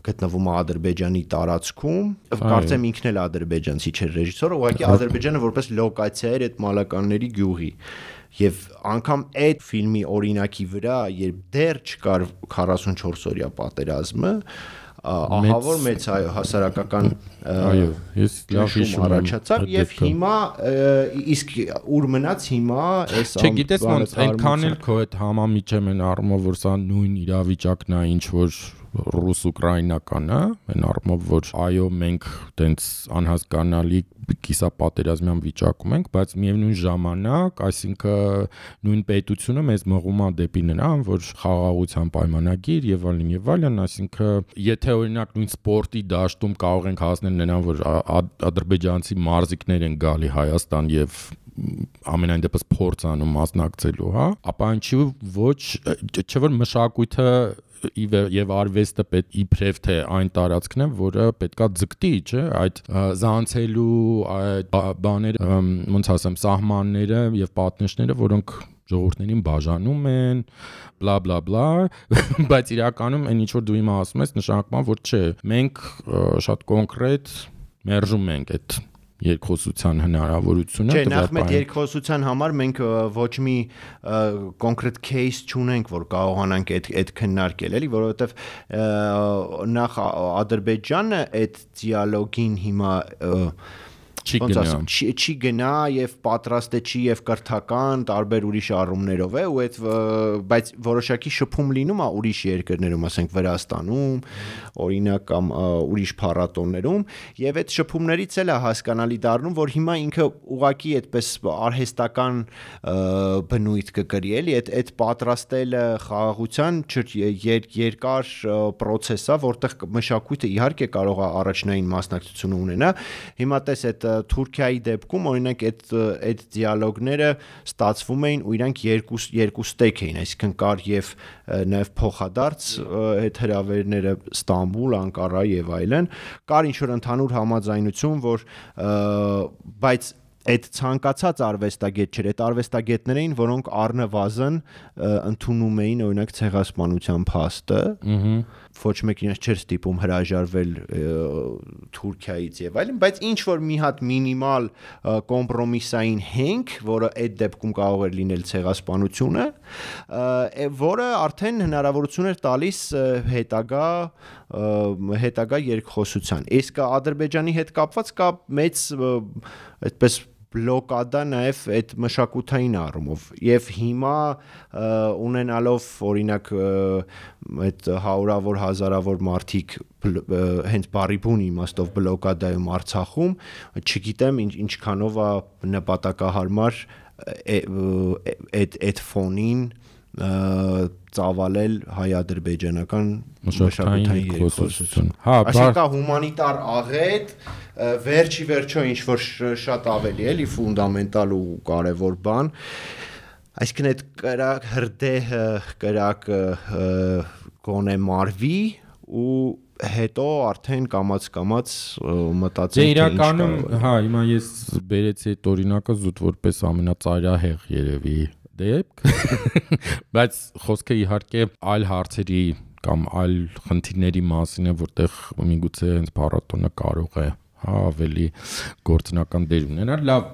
գտնվում է Ադրբեջանի տարածքում, կարծեմ ինքն էլ ադրբեջանցի չէր ռեժիսորը, ուղղակի Ադրբեջանը որպես լոկացիա էր այդ մոլոկանների գյուղի։ Եվ անգամ այդ ֆիլմի օրինակի վրա, երբ դեռ չկար 44 օրյա պատերազմը, ահա որ մեծ հասարակական ես լավ հիշում եմ առաջացավ եւ հիմա իսկ ուր մնաց հիմա այս չգիտես ոնց այնքան էլ քո այդ համամիջը մեն առումով որ սա նույն իրավիճակն է ինչ որ ռուս-ուկրաինական, այն առումով որ այո մենք տենց անհասկանալի կիսապատերազմյան վիճակում ենք, բայց միևնույն ժամանակ, այսինքն նույն պետությունը մեզ մղում է դեպի նրան, որ խաղաղության պայմանագիր եւ այլն, այսինքն եթե օրինակ նույն սպորտի դաշտում կարող ենք հասնել նրան, որ ադրբեջանցի մարզիկներ են գալի Հայաստան եւ ամենայն դեպս փորձ անում մասնակցելու, ապա ինչի ոչ, չէ՞ որ մշակույթը եւ արվեստը պետք իբրև թե այն տարածքն է, որը պետքա ձգտի, չէ, այդ զանցելու այդ բաները, ոնց ասեմ, սահմանները եւ պատնեշները, որոնք ժողովուրդներին բաժանում են, բլա բլա բլա, բայց իրականում այն ինչ որ դու հիմա ասում ես, նշանակում է, որ չէ, մենք շատ կոնկրետ մերժում ենք այդ երկխոսության հնարավորությունը Չէ, նախ մեծ երկխոսության համար մենք ոչ մի կոնկրետ case չունենք, որ կարողանանք այդ քննարկել, էլի, որովհետև նախ Ադրբեջանը այդ դիալոգին հիմա չի գնա եւ պատրաստ է չի եւ կրթական տարբեր ուրիշ առումներով է ու այդ բայց որոշակի շփում լինում է ուրիշ երկրներում, ասենք Վրաստանում, օրինակ կամ ուրիշ փառատոներում եւ այդ շփումներից էլ է հասկանալի դառնում, որ հիմա ինքը ուղակի այդպես արհեստական բնույթ կկրի, էլի, այդ պատրաստելը խաղաղության երկար process է, որտեղ մշակույթը իհարկե կարող է առաջնային մասնակցություն ունենա։ Հիմա տես այդ Թուրքիայի դեպքում օրինակ այդ դիալոգները ստացվում էին ու իրանք երկու ստեյք էին, այսինքն կար եւ նաեւ փոխադարձ այդ հրավերները Ստամբուլ, Անկարա եւ այլն, կար ինչ որ ընդհանուր համաձայնություն, որ բայց այդ ցանկացած արվեստագետ չէր, այդ արվեստագետներ էին, որոնք առնվազն ընդունում էին օրինակ ցեղասպանության փաստը, ոչ մեկին իրենց չէր ստիպում հրաժարվել Թուրքիայից եւ այլն, բայց ինչ որ մի հատ մինիմալ կոմպրոմիսային հենք, որը այդ դեպքում կարող էր լինել ցեղասպանությունը, որը արդեն հնարավորություն էր տալիս հետագա երկխոսության։ Իսկ Ադրբեջանի հետ կապված կա մեծ այդպես բլոկադա նաև այդ մշակութային առումով եւ հիմա ունենալով օրինակ այդ հարյուրավոր հազարավոր մարդիկ հենց բարի բուն իմաստով բլոկադայում Արցախում չգիտեմ ինչքանով է նպատակահարմար այդ ֆոնին ծավալել հայ-ադրբեջանական մշակութային երկխոսություն։ Այսինքն հումանիտար աղետ վերջի վերջո ինչ որ շատ ավելի էլի ֆունդամենտալ ու կարևոր բան, այսինքն այդ կրակ հրդեհը կրակը գոնե մարվի ու հետո արդեն կամաց մտածենք իրականում, հիմա ես բերեցի այդ օրինակը զուտ որպես ամենածայրահեղ երևի դեպք, բայց խոսքը իհարկե այլ հարցերի կամ այլ խնդիրների մասին է, որտեղ միգուցե հենց փառատոնը կարող է ավելի գործնական դեր ունենալ։ Լավ,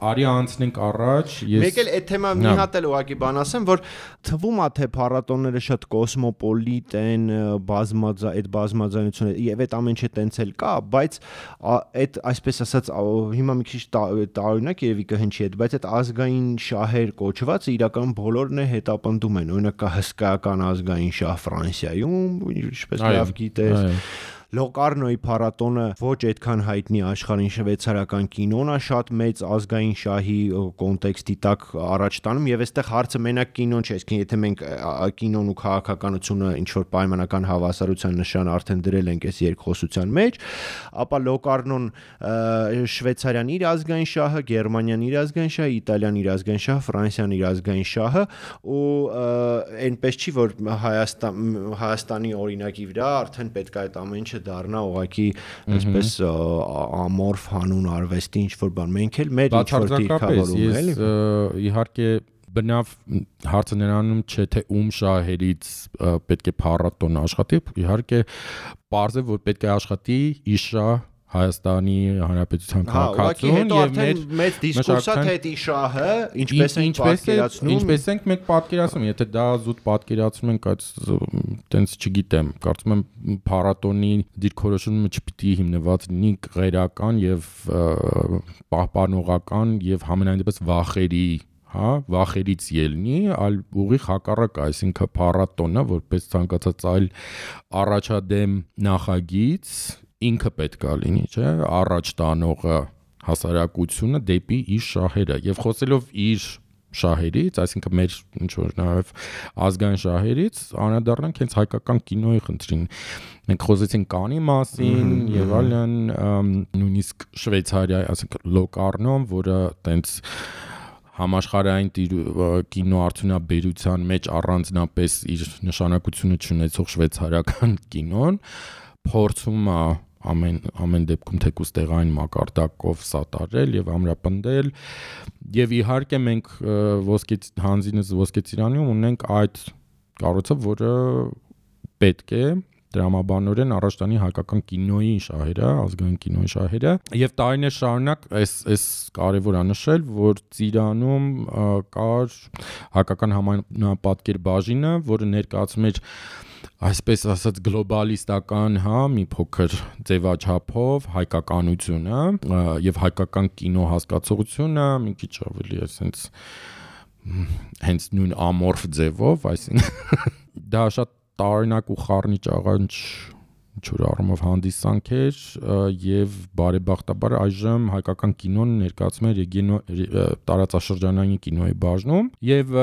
արի անցնենք առաջ։ Մեկ էլ այդ թեմա մի հատ էլ ուղղակի բան ասեմ, որ թվում է թե փառատոնները շատ կոսմոպոլիտ են, այդ բազմազանությունը եւ այդ ամեն ինչը տենց էլ կա, բայց այդ այսպես ասած հիմա մի քիչ տարօրինակ երևի կհնչի այդ, բայց այդ ազգային շահեր կոչվածը իրականում բոլորն է հետապնդում են։ Օրինակ կա հսկայական ազգային շահ Ֆրանսիայում, ինչպես լավ գիտես, Լոկարնոյի փառատոնը ոչ այդքան հայտնի աշխարհին շվեյցարական կինոն է շատ մեծ ազգային շահի կոնտեքստի տակ առաջ տանում եւ այստեղ հարցը մենակ կինոն չէ, այսինքն եթե մենք կինոն ու քաղաքականությունը ինչ որ պայմանական հավասարության նշան արդեն դրել ենք այս երկխոսության մեջ, ապա Լոկարնոն Շվեյցարիան իր ազգային շահը, Գերմանիան իր ազգային շահը, Իտալիան իր ազգային շահը, Ֆրանսիան իր ազգային շահը ու այնպես չի որ Հայաստանի օրինակի վրա արդեն պետք է այդ ամեն ինչը դառնա ուղղակի այսպես ամորֆ հանուն արվեստի ինչ որ բան մենք էլ մեր ինչ որ դիրքավորում էլի իհարկե բնավ հարցը նրանում չէ թե ում շահերից պետք է փառատոն աշխատի իհարկե պարզ է որ պետք է աշխատի իր շահ Հայաստանի Հանրապետության քաղաքացուն եւ մեծ դիսկուրսա թե դա շահը ինչպես ենք պատկերացնում ինչպես ենք մենք պատկերացնում եթե դա զուտ պատկերացնում ենք այդ տենց չգիտեմ կարծում եմ փառատոնի դիրքորոշումը չպիտի հիմնված լինի ղերական եւ պահպանողական եւ համենայն դեպս վախերի վախերից ելնի, այլ ուղիղ հակառակ, այսինքն փառատոնը որպես ցանկացած այլ առաջադեմ նախագիծ ինքը պետք է լինի, չէ, առաջ տանողը հասարակությունը դեպի իր շահերը եւ խոսելով իր շահերից, այսինքն մեր ինչ որ նաեւ ազգային շահերից, անդրադառնանք հենց հայկական կինոյի խնդրին։ Մենք խոսեցինք Կանի մասին եւ այլն, նույնիսկ Շվեյցարիա, այսինքն Լոկարնոն, որը տենց համաշխարհային կինոարդյունաբերության մեջ առանձնապես իր նշանակությունը ունեցող շվեյցարական կինոն փորձում է ամեն դեպքում թեկուզ տեղային մակարդակով սատարել եւ ամրապնդել եւ իհարկե մենք ոսկե ծիրանում ունենք այդ կառույցը, որը պետք է դրամաբանորեն առաջ տանի հայկական կինոյի շահերը, ազգային կինոյի շահերը եւ տարիներ շարունակ այս կարեւոր է նշել, որ Ծիրանում կար հայկական համանապատկեր բաժինը, որը ներկայացում էր այսպես ասած գլոբալիստական, մի փոքր ձևաչափով հայկականությունը եւ հայկական կինո հասկացողությունը մի քիչ ավելի այսպես հենց նույն ամորֆ ձևով, այսինքն դա շատ տարօրինակ ու խառնիչ աղանջ ինչ-որ առումով հանդիսանք էր եւ բարեբախտաբար այժմ հայկական կինոն ներկայացում է տարածաշրջանային կինոյի բաժնում եւ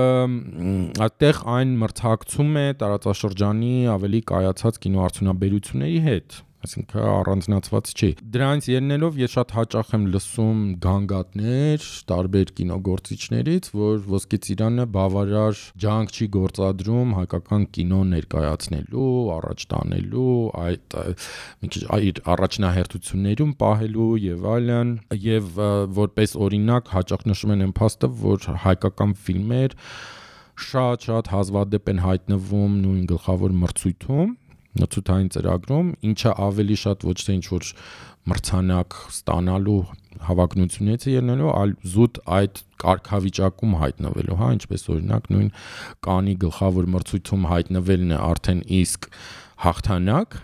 այդտեղ այն մրցակցում է տարածաշրջանի ավելի կայացած կինոարդյունաբերությունների հետ այսինքն առանձնացված չի դրանից ելնելով ես շատ հաճախ եմ լսում գանգատներ տարբեր կինոգործիչներից որ ոսկե ծիրանը բավարար ջանք չի գործադրում հայկական կինո ներկայացնելու առաջ տանելու այդ մի քիչ այդ առաջնահերթություններում պահելու եւ այլն եւ որպես օրինակ հաճախ նշում են այն փաստը որ հայկական ֆիլմեր շատ հազվադեպ են հայտնվում նույն գլխավոր մրցույթում նցութային ծրագրում, ինչը ավելի շատ ոչ թե ինչ-որ մրցանակ ստանալու հավակնությունից է ելնելու, այլ զուտ այդ կարգավիճակում հայտնվելու, ինչպես օրինակ նույն Կանի գլխավոր մրցույթում հայտնվելն է արդեն իսկ հաղթանակ,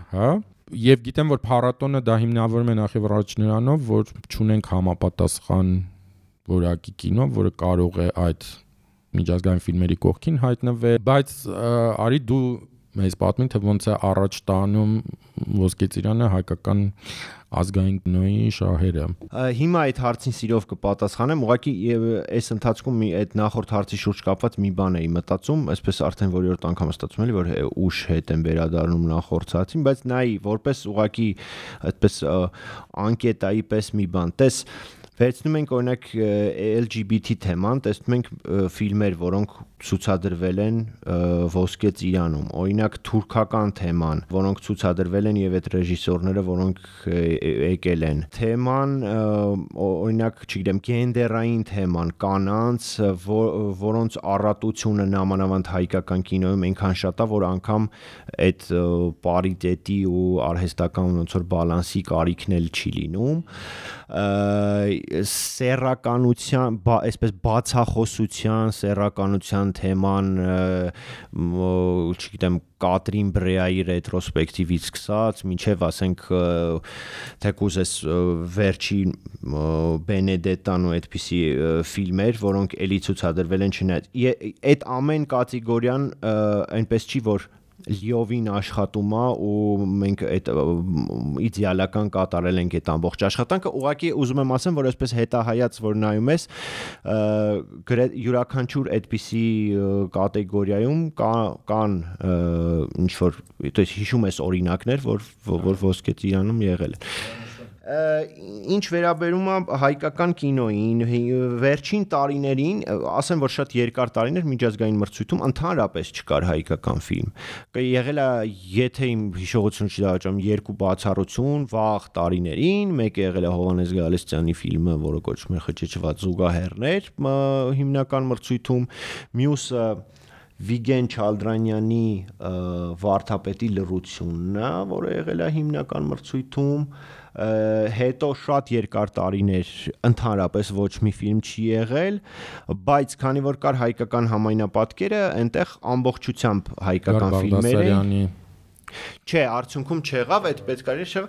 եւ գիտեմ, որ փառատոնը դա հիմնավորում է նախ եւ առաջ նրանով, որ չունենք համապատասխան որակի կինո, որը կարող է այդ միջազգային ֆիլմերի կողքին հայտնվել, բայց արի դու մեզ պատմին թե ոնց է առաջ տանում ոսկե ծիրանը հայկական ազգային կինոյի շահերը։ Հիմա այդ հարցին սիրով կպատասխանեմ, ուղղակի այս ընթացքում այդ նախորդ հարցի շուրջ կապված մի բան էի մտածում, այսպես արդեն որերորդ անգամ ստացվում էլի, որ ուշ հետ եմ վերադառնում նախորդ հարցին, բայց նայի որպես ուղղակի այդպես անկետայի պես մի բան։ Տես վերցնում ենք օրինակ LGBT թեման, տեսնում ենք ֆիլմեր, որոնք ցուցադրվել են ոսկե ծիրանում, օրինակ թուրքական թեման, որոնք ցուցադրվել են եւ այդ ռեժիսորները, որոնք եկել են։ Թեման, օրինակ, չգիտեմ, գենդերային թեման, կանանց, որոնց առատությունը նամանավանդ հայկական կինոյում այնքան շատ է, որ անգամ այդ պարիտետի ու արհեստական ոնց որ բալանսի կարիքն էլ չի լինում։ Սեռականության, այսպես բացախոսության, սեռականության թեման, չգիտեմ, Կատրին Բրեայի ռետրոսպեկտիվից սկսած, մինչև ասենք թեկուզ էս վերջին Բենեդետան ու այդպիսի ֆիլմեր, որոնք էլի ցուցադրվել են չնայած։ Այդ ամեն կատեգորիան այնպես չի, որ լիովին աշխատում է ու մենք այդ իդեալական կատարել ենք այդ ամբողջ աշխատանքը ուղղակի ուզում եմ ասեմ որ այսպես հետահայաց որ նայում ես յուրաքանչյուր այդպիսի կատեգորիայում կան ինչ որ то есть հիշում ես օրինակներ որ ոսկե ծիրանում եղել են ինչ վերաբերում է հայկական կինոյին վերջին տարիներին ասեմ որ շատ երկար տարիներ միջազգային մրցույթում ընդհանրապես չկար հայկական ֆիլմ եղել է եթե իմ հիշողությունը չի դավաճանում երկու բացառություն վաղ տարիներին մեկը եղել է Հովհաննես Գալստյանի ֆիլմը որը կոչվում է խճճված զուգահեռներ հիմնական մրցույթում մյուսը Վիգեն Չալդրանյանի Վարդապետի լռությունն է որը եղել է հիմնական մրցույթում հետո շատ երկար տարիներ ընդհանրապես ոչ մի ֆիլմ չի եղել բայց քանի որ կար հայկական համայնապատկերը այնտեղ ամբողջությամբ հայկական ֆիլմեր էին Չէ, արդյունքում չեղավ, այդ պետք է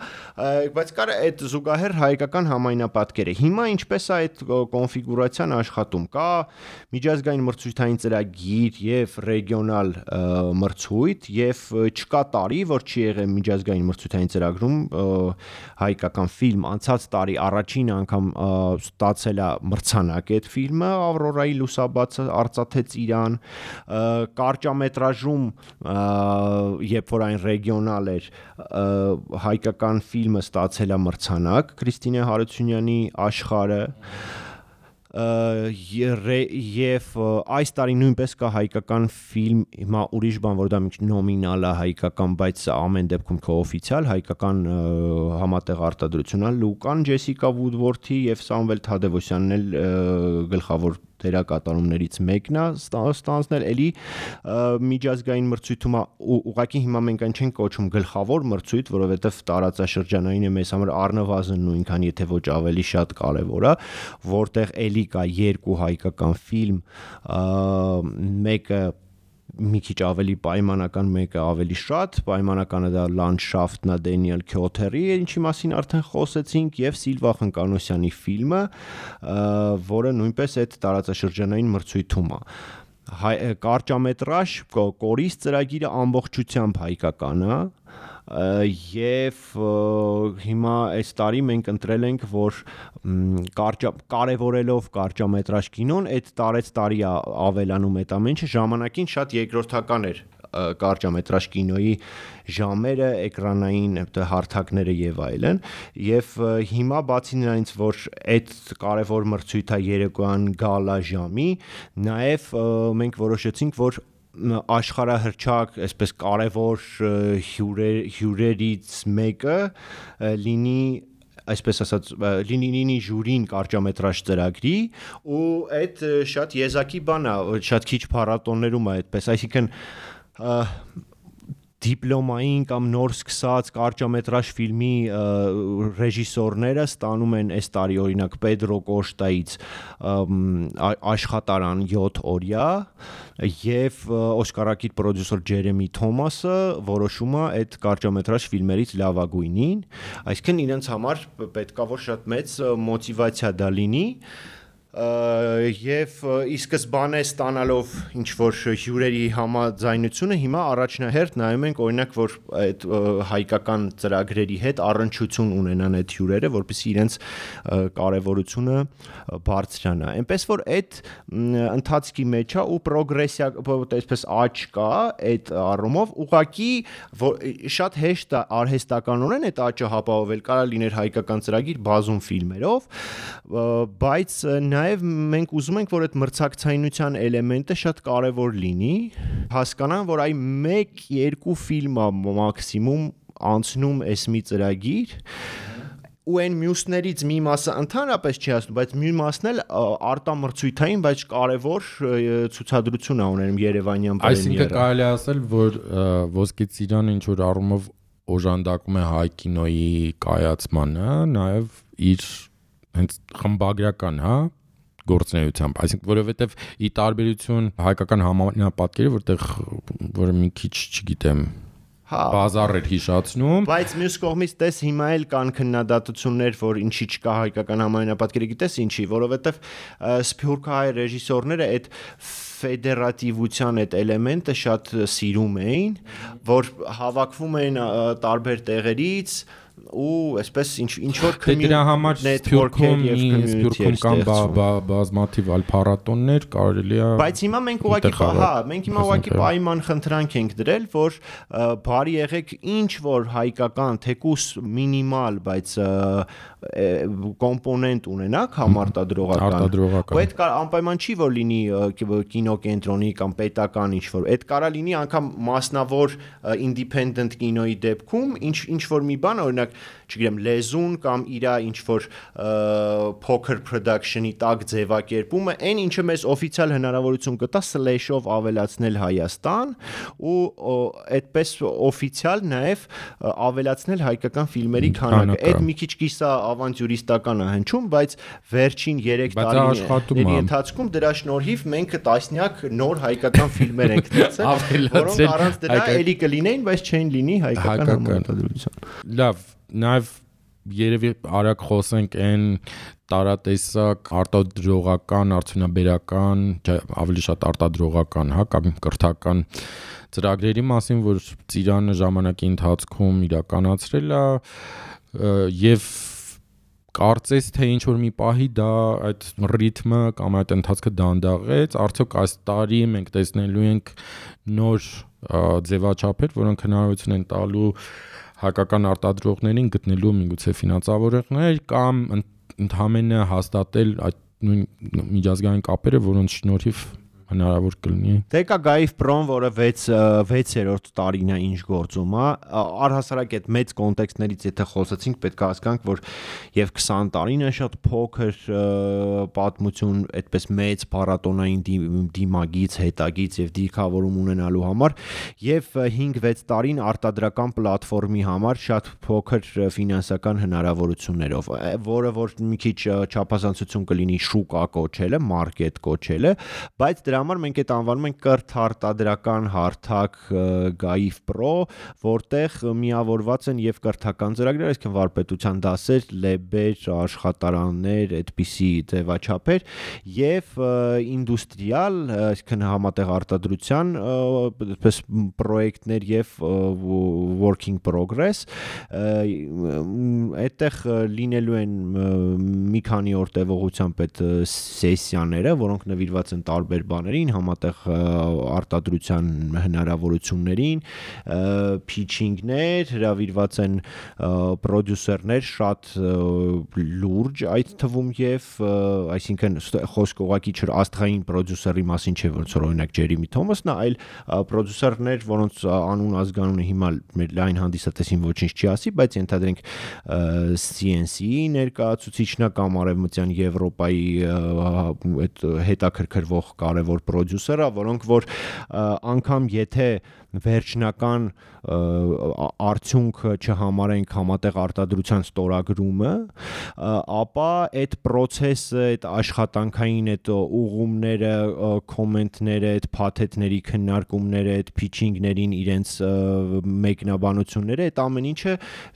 բայց կար այդ զուգահեռ հայկական համայնապատկերը։ Հիմա ինչպես է այդ կոնֆիգուրացիան աշխատում։ Կա միջազգային մրցույթային ծրագիր եւ ռեգիոնալ մրցույթ եւ չկա տարի, որ չի եղել միջազգային մրցույթային ծրագրում հայկական ֆիլմ։ Անցած տարի առաջին անգամ ստացել է մրցանակ այդ ֆիլմը Ավրորայի լուսաբացը արծաթեց իրան կարճամետրաժում երբ որ այն ռեգիոնալ էր հայկական ֆիլմը ստացել է մրցանակ Քրիստինե Հարությունյանի աշխարհը եւ այս տարի նույնպես կա հայկական ֆիլմ հիմա ուրիշ բան որ դա նոմինալ է հայկական բայց ամեն դեպքում կօֆիցիալ հայկական համատեղ արտադրություն է Լուկան Ջեսիկա Վուդվորթի եւ Սամվել Թադևոսյանն էլ գլխավոր դերակատարումներից մեկն է ստանձնել էլի միջազգային մրցույթում ուղղակի հիմա մենք այն չենք կոչում գլխավոր մրցույթ որովհետեւ տարածաշրջանային է մեզ համար առնվազն նույնքան եթե ոչ ավելի շատ կարևոր է որտեղ էլի կա երկու հայկական ֆիլմ մեկը մի քիչ ավելի պայմանական մեկը ավելի շատ պայմանականը դա լանդշաֆտն է Դենիել Քյոթերի ինչի մասին արդեն խոսեցինք եւ Սիլվա Խնկանոսյանի ֆիլմը որը նույնպես այդ տարածաշրջանային մրցույթում է կարճամետրաժ կորիս ծրագիրը ամբողջությամբ հայկական է եւ հիմա այս տարի մենք ընտրել ենք որ կարևորելով կարճամետրաժ կինոն այդ տարի ավելանում այդ ամենը ժամանակին շատ երկրորդական էր կարճամետրաժ կինոյի ժամերը, էկրանային հարթակները եւ այլն եւ հիմա բացի նրանից որ այդ կարևոր մրցույթը երեկոյան գալա ժամի նաեւ մենք որոշեցինք որ աշխարհահռչակ, այսպես կարևոր հյուրերից մեկը լինի այսպես ասած լինի ժյուրին կարճամետրաժ ծրագրի ու այդ շատ եզակի բան է, շատ քիչ փառատոներում է այդպես, այսինքն դիպլոմային կամ նոր սկսած կարճամետրաժ ֆիլմի ռեժիսորները ստանում են այս տարի օրինակ Պետրո Կոշտայից աշխատարան 7 օրյա եւ օսկարակիր պրոդյուսեր Ջերեմի Թոմասը որոշում է այդ կարճամետրաժ ֆիլմերից լավագույնին, այսինքն իրենց համար պետքա որ շատ մեծ մոտիվացիա դա լինի եւ ի սկզբանե ստանալով ինչ որ հյուրերի համաձայնությունը հիմա առաջնահերթ նայում ենք օրինակ որ այդ հայկական ծրագրերի հետ առնչություն ունենան այդ հյուրերը որպեսզի իրենց կարեւորությունը բարձրանա այնպես որ այդ ընթացքի մեջ է ու պրոգրեսիա այսպես աճ կա այդ առումով ուղղակի շատ հեշտ է արհեստականորեն այդ աճը հապավովել կարա լիներ հայկական ծրագիր բազում ֆիլմերով բայց Նաև մենք ուզում ենք, որ այդ մրցակցայնության էլեմենտը շատ կարևոր լինի, հասկանան, որ այ 1-2 ֆիլմ է մաքսիմում անցնում էս մի ծրագիր, ու այն մյուսներից մի մասը ընդհանրապես չի ասում, բայց մի մասն էլ արտամրցույթային, բայց կարևոր ցուցադրություն է ունենում Երևանյան պրեմիերը։ Այսինքն կարելի ասել, որ Ոսկե ծիրանը ինչ որ առումով օժանդակում է հայ կինոյի կայացմանը, նաև իր հենց խմբագրական, հա, գործունեությամբ, այսինքն որովհետև ի տարբերություն հայկական համանապատկերի, որտեղ որը մի քիչ, չգիտեմ, բազար էր հիշացնում, բայց մյուս կողմից տես հիմա էլ կան քննադատություններ, որ ինչի չկա հայկական համայնապատկերը, գիտես ինչի, որովհետև սփյուռքահայ ռեժիսորները այդ ֆեդերատիվության այդ էլեմենտը շատ սիրում էին, որ հավաքվում էին տարբեր տեղերից ու այսպես ինչ որ դրա համար Սփյուռքում կան բազմաթիվ այլ փառատոններ, կարելի է բայց հիմա մենք ուղղակի պայման խնդրանք ենք դրել, որ բարի եղեք ինչ որ հայկական թեկուս մինիմալ, բայց կոմպոնենտ ունենաք համարտադրողական, ու այդ անպայման չի որ լինի կինոկենտրոնի կամ պետական ինչ որ, այդ կարա լինի անգամ մասնավոր independent կինոյի դեպքում ինչ որ մի բան, օրինակ չգիտեմ լեզուն կամ իրա ինչ որ փոքր production-ի տակ ձևակերպումը, այն ինչը մեզ օֆիցիալ հնարավորություն կտա slash-ով ավելացնել Հայաստան ու այդպես օֆիցիալ նաև ավելացնել հայկական ֆիլմերի քանակը։ Այդ մի քիչ կիսա ավանտյուրիստական է հնչում, բայց վերջին 3 տարիների ընթացքում դրա շնորհիվ մենք տասնյակ նոր հայկական ֆիլմեր ենք դարձել, որոնք առանց դրա էլի կլինեին, բայց չեն լինի հայկական համարտադրության։ Լավ, նաև երևի արագ խոսենք այն տարատեսակ արտադրողական, արդյունաբերական, ավելի շատ արտադրողական, կամ կրթական ծրագրերի մասին, որ Ծիրանը ժամանակի ընթացքում իրականացրել է եւ կարծես թե ինչ որ մի պահի դա այդ ռիթմը կամ այդ ընթացքը դանդաղեց, արդյոք այս տարի մենք տեսնելու ենք նոր ձևաչափեր, որոնք հնարավորություն են տալու հայկական արտադրողներին գտնելու միգուցե ֆինանսավորողներ կամ ընդհանրապես հաստատել այդ նույն միջազգային կապերը, որոնց շնորհիվ հնարավոր կլինի։ Դե կա Գայիվ Պրոն, որը 6-րդ տարին է ինչ գործում է, առհասարակ այդ մեծ կոնտեքստներից եթե խոսեցինք, պետք է հասկանանք, որ եւ 20 տարին է շատ փոքր պատմություն, այդպես մեծ փառատոնային դիմագից, հետագից եւ դիրքավորում ունենալու համար, եւ 5-6 տարին արտադրական պլատֆորմի համար շատ փոքր ֆինանսական հնարավորություններով, որը որ մի քիչ չափազանցություն կլինի շուկա կոչելը, մարքետ կոչելը, բայց դրա համար մենք այդ անվանում ենք կրթարտադրական հարթակ Գայիվ Պրո, որտեղ միավորված են եւ կրթական ծրագրեր, այսինքն վարպետության դասեր, լեբեր, աշխատարաններ, այդպիսի ձևաչափեր եւ ինդուստրիալ, այսինքն համատեղ արտադրության այդպես պրոյեկտներ եւ working progress, այդտեղ լինելու են մի քանի օր տևողությամբ այդ սեսիաները, որոնք նվիրված են տարբեր բաներին, համատեղ արտադրության հնարավորություններին, փիչինգներ, հրավիրված են պրոդյուսերներ շատ լուրջ այդ թվում եւ այսինքն խոսք ուղղակի չէ աստղային պրոդյուսերի մասին չէ, ոնց որ օրինակ Ջերեմի Թոմասն է, այլ պրոդյուսերներ, որոնց անուն ազգանունը հիմա մեր լայն հանդիսատեսին ոչինչ չի ասի, բայց ենթադրենք CNC-ի ներկայացուցիչն է կամ արևմտյան Եվրոպայի այդ հետաքրքրվող կարևոր պրոդյուսերը, որոնք որ անգամ եթե վերջնական արդյունքը չհամարենք համատեղ արտադրության ստորագրումը, ապա այդ process-ը, այդ աշխատանքային այդ ուղումները, կոմենտները, այդ փաթեթների քննարկումները, այդ pitching-ներին իրենց մեկնաբանությունները, այդ ամեն ինչը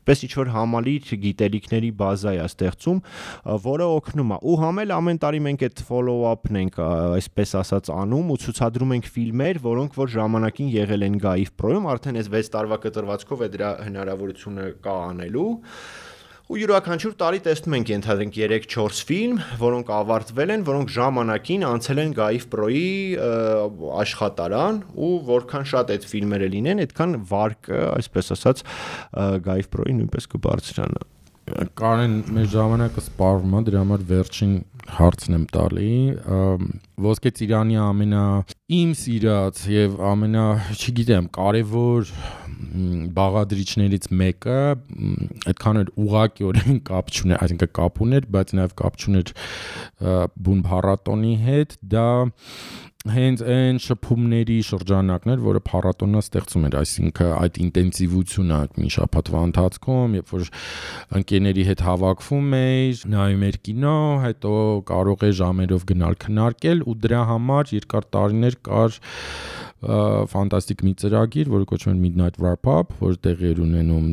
պես ինչ-որ համալիր գիտելիքների բազա է ստեղծում, որը օգնում է։ Ու համել ամեն տարի մենք այդ follow-up-ն ենք, այսպես ասած անում ու ցուցադրում ենք ֆիլմեր, որոնք որ ժամանակին եղել են Գայիվ Պրոյում, արդեն այս 6 տարվա կտրվածքով է դրա հնարավորությունը կա անելու։ Ու յուրաքանչյուր տարի տեսնում ենք ենթադրենք 3-4 ֆիլմ, որոնք ավարտվել են, որոնք ժամանակին անցել են Գայիվ Պրոյի աշխատարան ու որքան շատ այդ ֆիլմերը լինեն, այդքան վարկը, այսպես ասած, Գայիվ Պրոյի նույնպես կբարձրանա։ Կարեն, մեր ժամանակը սպառվում է, դրա համար վերջին հարցն եմ տալի, Ոսկե Ծիրանի իմ սիրած եւ չգիտեմ, կարևոր բաղադրիչներից մեկը այդքան էլ ուղղակիորեն կապ չուներ, այսինքն կապ ուներ, բայց նաեւ կապ չուներ բուն փառատոնի հետ, դա հենց այն շփումների շրջանակն էր, որը փառատոնը ստեղծում էր, այսինքն այդ ինտենսիվությունը մի շաբաթվա ընթացքում, երբ որ ընկերների հետ հավաքվում էիր, նայում էր կինո, հետո կարող է ժամերով գնալ քննարկել ու դրա համար երկար տարիներ կար ֆանտաստիկ մի ծրագիր, որը կոչվում է Midnight Wrap-Up, որը տեղի էր ունենում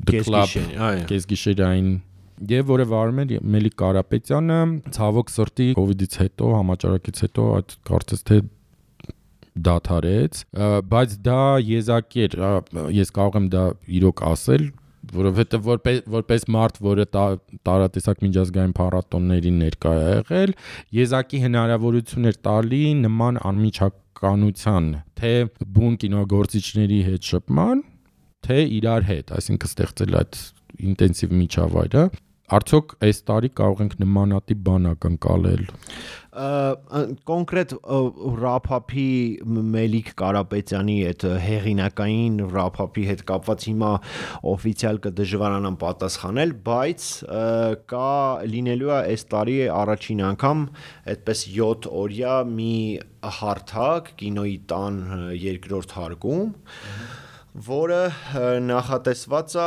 The Club կեսգիշերային եւ որը վարում էր Մելիք Կարապետյանը, ցավոք սրտի COVID-ից հետո, համաճարակից հետո այդ կարծես թե դադարեց, բայց դա եզակի էր, ես կարող եմ դա իրոք ասել, որովհետեւ որպես մարդ, որը տարատեսակ միջազգային փառատոնների ներկա է եղել, եզակի հնարավորություն էր տալի նման անմիջականության, թե բուն կինոգործիչների հետ շփման, թե իրար հետ, այսինքն ստեղծել այդ ինտենսիվ միջավայրը, արդյոք այս տարի կարող ենք նմանատիպ բան ակնկալել։ Կոնկրետ Wrap-up-ի Մելիք Կարապետյանի այդ հեղինակային Wrap-up-ի հետ կապված հիմա օֆիցիալ կդժվարանամ պատասխանել, բայց կա լինելու է այս տարի առաջին անգամ այդպես 7 օրյա մի հարթակ կինոյի տան երկրորդ հարկում, որը նախատեսված է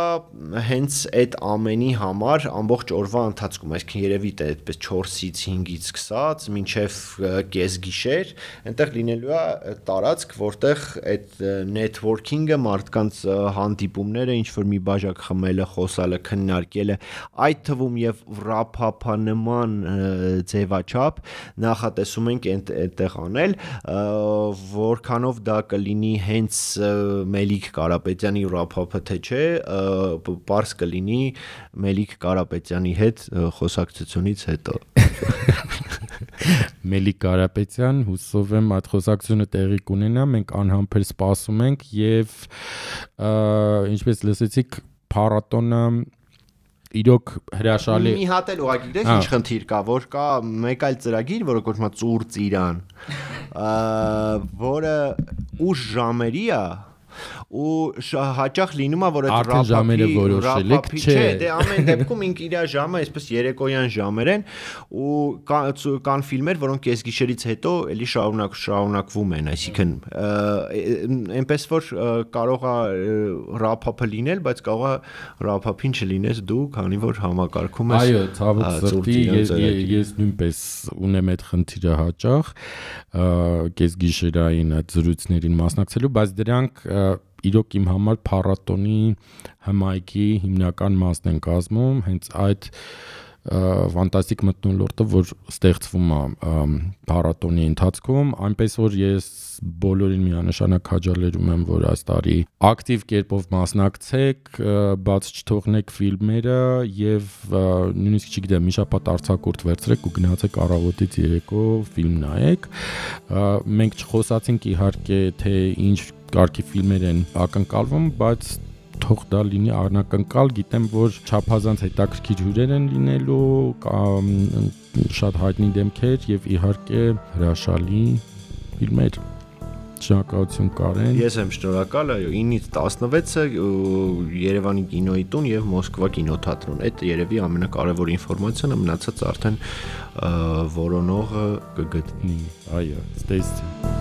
հենց այդ ամենի համար ամբողջ օրվա ընթացքում, այսինքն երևի թե այդպես 4-ից 5-ից սկսած մինչև կեսգիշեր, այնտեղ լինելու է տարածք, որտեղ այդ networking-ը, մարդկանց հանդիպումները, ինչ որ մի բաժակ խմելը, խոսալը, քննարկելը, այդ թվում եւ wrap-up-ը նման ձևաչափ նախատեսում ենք այդտեղ անել, որքանով դա կլինի հենց Մելիք Կարապետյանի Wrap-up-ը թե չէ, պարզ կլինի Մելիք Կարապետյանի հետ խոսակցությունից հետո։ Մելիք Կարապետյան, հուսով եմ այդ խոսակցությունը տեղի կունենա, մենք անհամբեր սպասում ենք եւ ինչպես լսեցիք, փառատոնը իրոք հրաշալի մի հատ էլ ուղղակի գիտես ինչ խնդիր կա, որ կա մեկ այլ ծրագիր, որը կոչվում է Ծուր Ծիրան, որը ուշ ժամերի է ու հաճախ լինում է որ այդ Wrap-up-ի չէ, դե ամեն դեպքում ինք իր ժամը այսպես երեկոյան ժամեր են ու կան ֆիլմեր, որոնք կեսգիշերից հետո էլի շարունակվում են, այսինքն այնպես որ կարող է Wrap-up-ը լինել, բայց կարող է Wrap-up-ին չլինես դու, քանի որ համակարգում ես։ Այո, ցավոք սրտի ես նույնպես ունեմ այդ խնդիրը հաճախ կեսգիշերային այդ զրույցներին մասնակցելու, բայց դրանք իրոք իմ համար փառատոնի հմայքի հիմնական մասն են կազմում, հենց այդ ֆանտաստիկ մթնոլորտը, որ ստեղծվում է փառատոնի ընթացքում, այնպես որ ես բոլորին միանշանակ քաջալերում եմ, որ այս տարի ակտիվ կերպով մասնակցեք, բաց չթողնեք ֆիլմերը եւ նույնիսկ չգիտեմ, մի շաբաթ արձակուրդ վերցրեք ու գնացեք առավոտից երեկո ֆիլմ նայեք։ Մենք չխոսացինք իհարկե, թե ինչ կարգի ֆիլմեր են ակնկալվում, բայց թող դա լինի անակնկալ, գիտեմ, որ չափազանց հետաքրքիր հյուրեր են լինելու, շատ հայտնի դեմքեր եւ իհարկե հրաշալի ֆիլմեր։ Շնորհակալություն Կարեն։ Ես եմ շնորհակալ, այո, 9-ից 16-ը Երևանի կինոյի տուն եւ Մոսկվա կինոթատրոն։ Այդ երևի ամենակարևոր ինֆորմացիան է, մնացած արդեն որոնողը կգտնի։ Այո, stay tuned։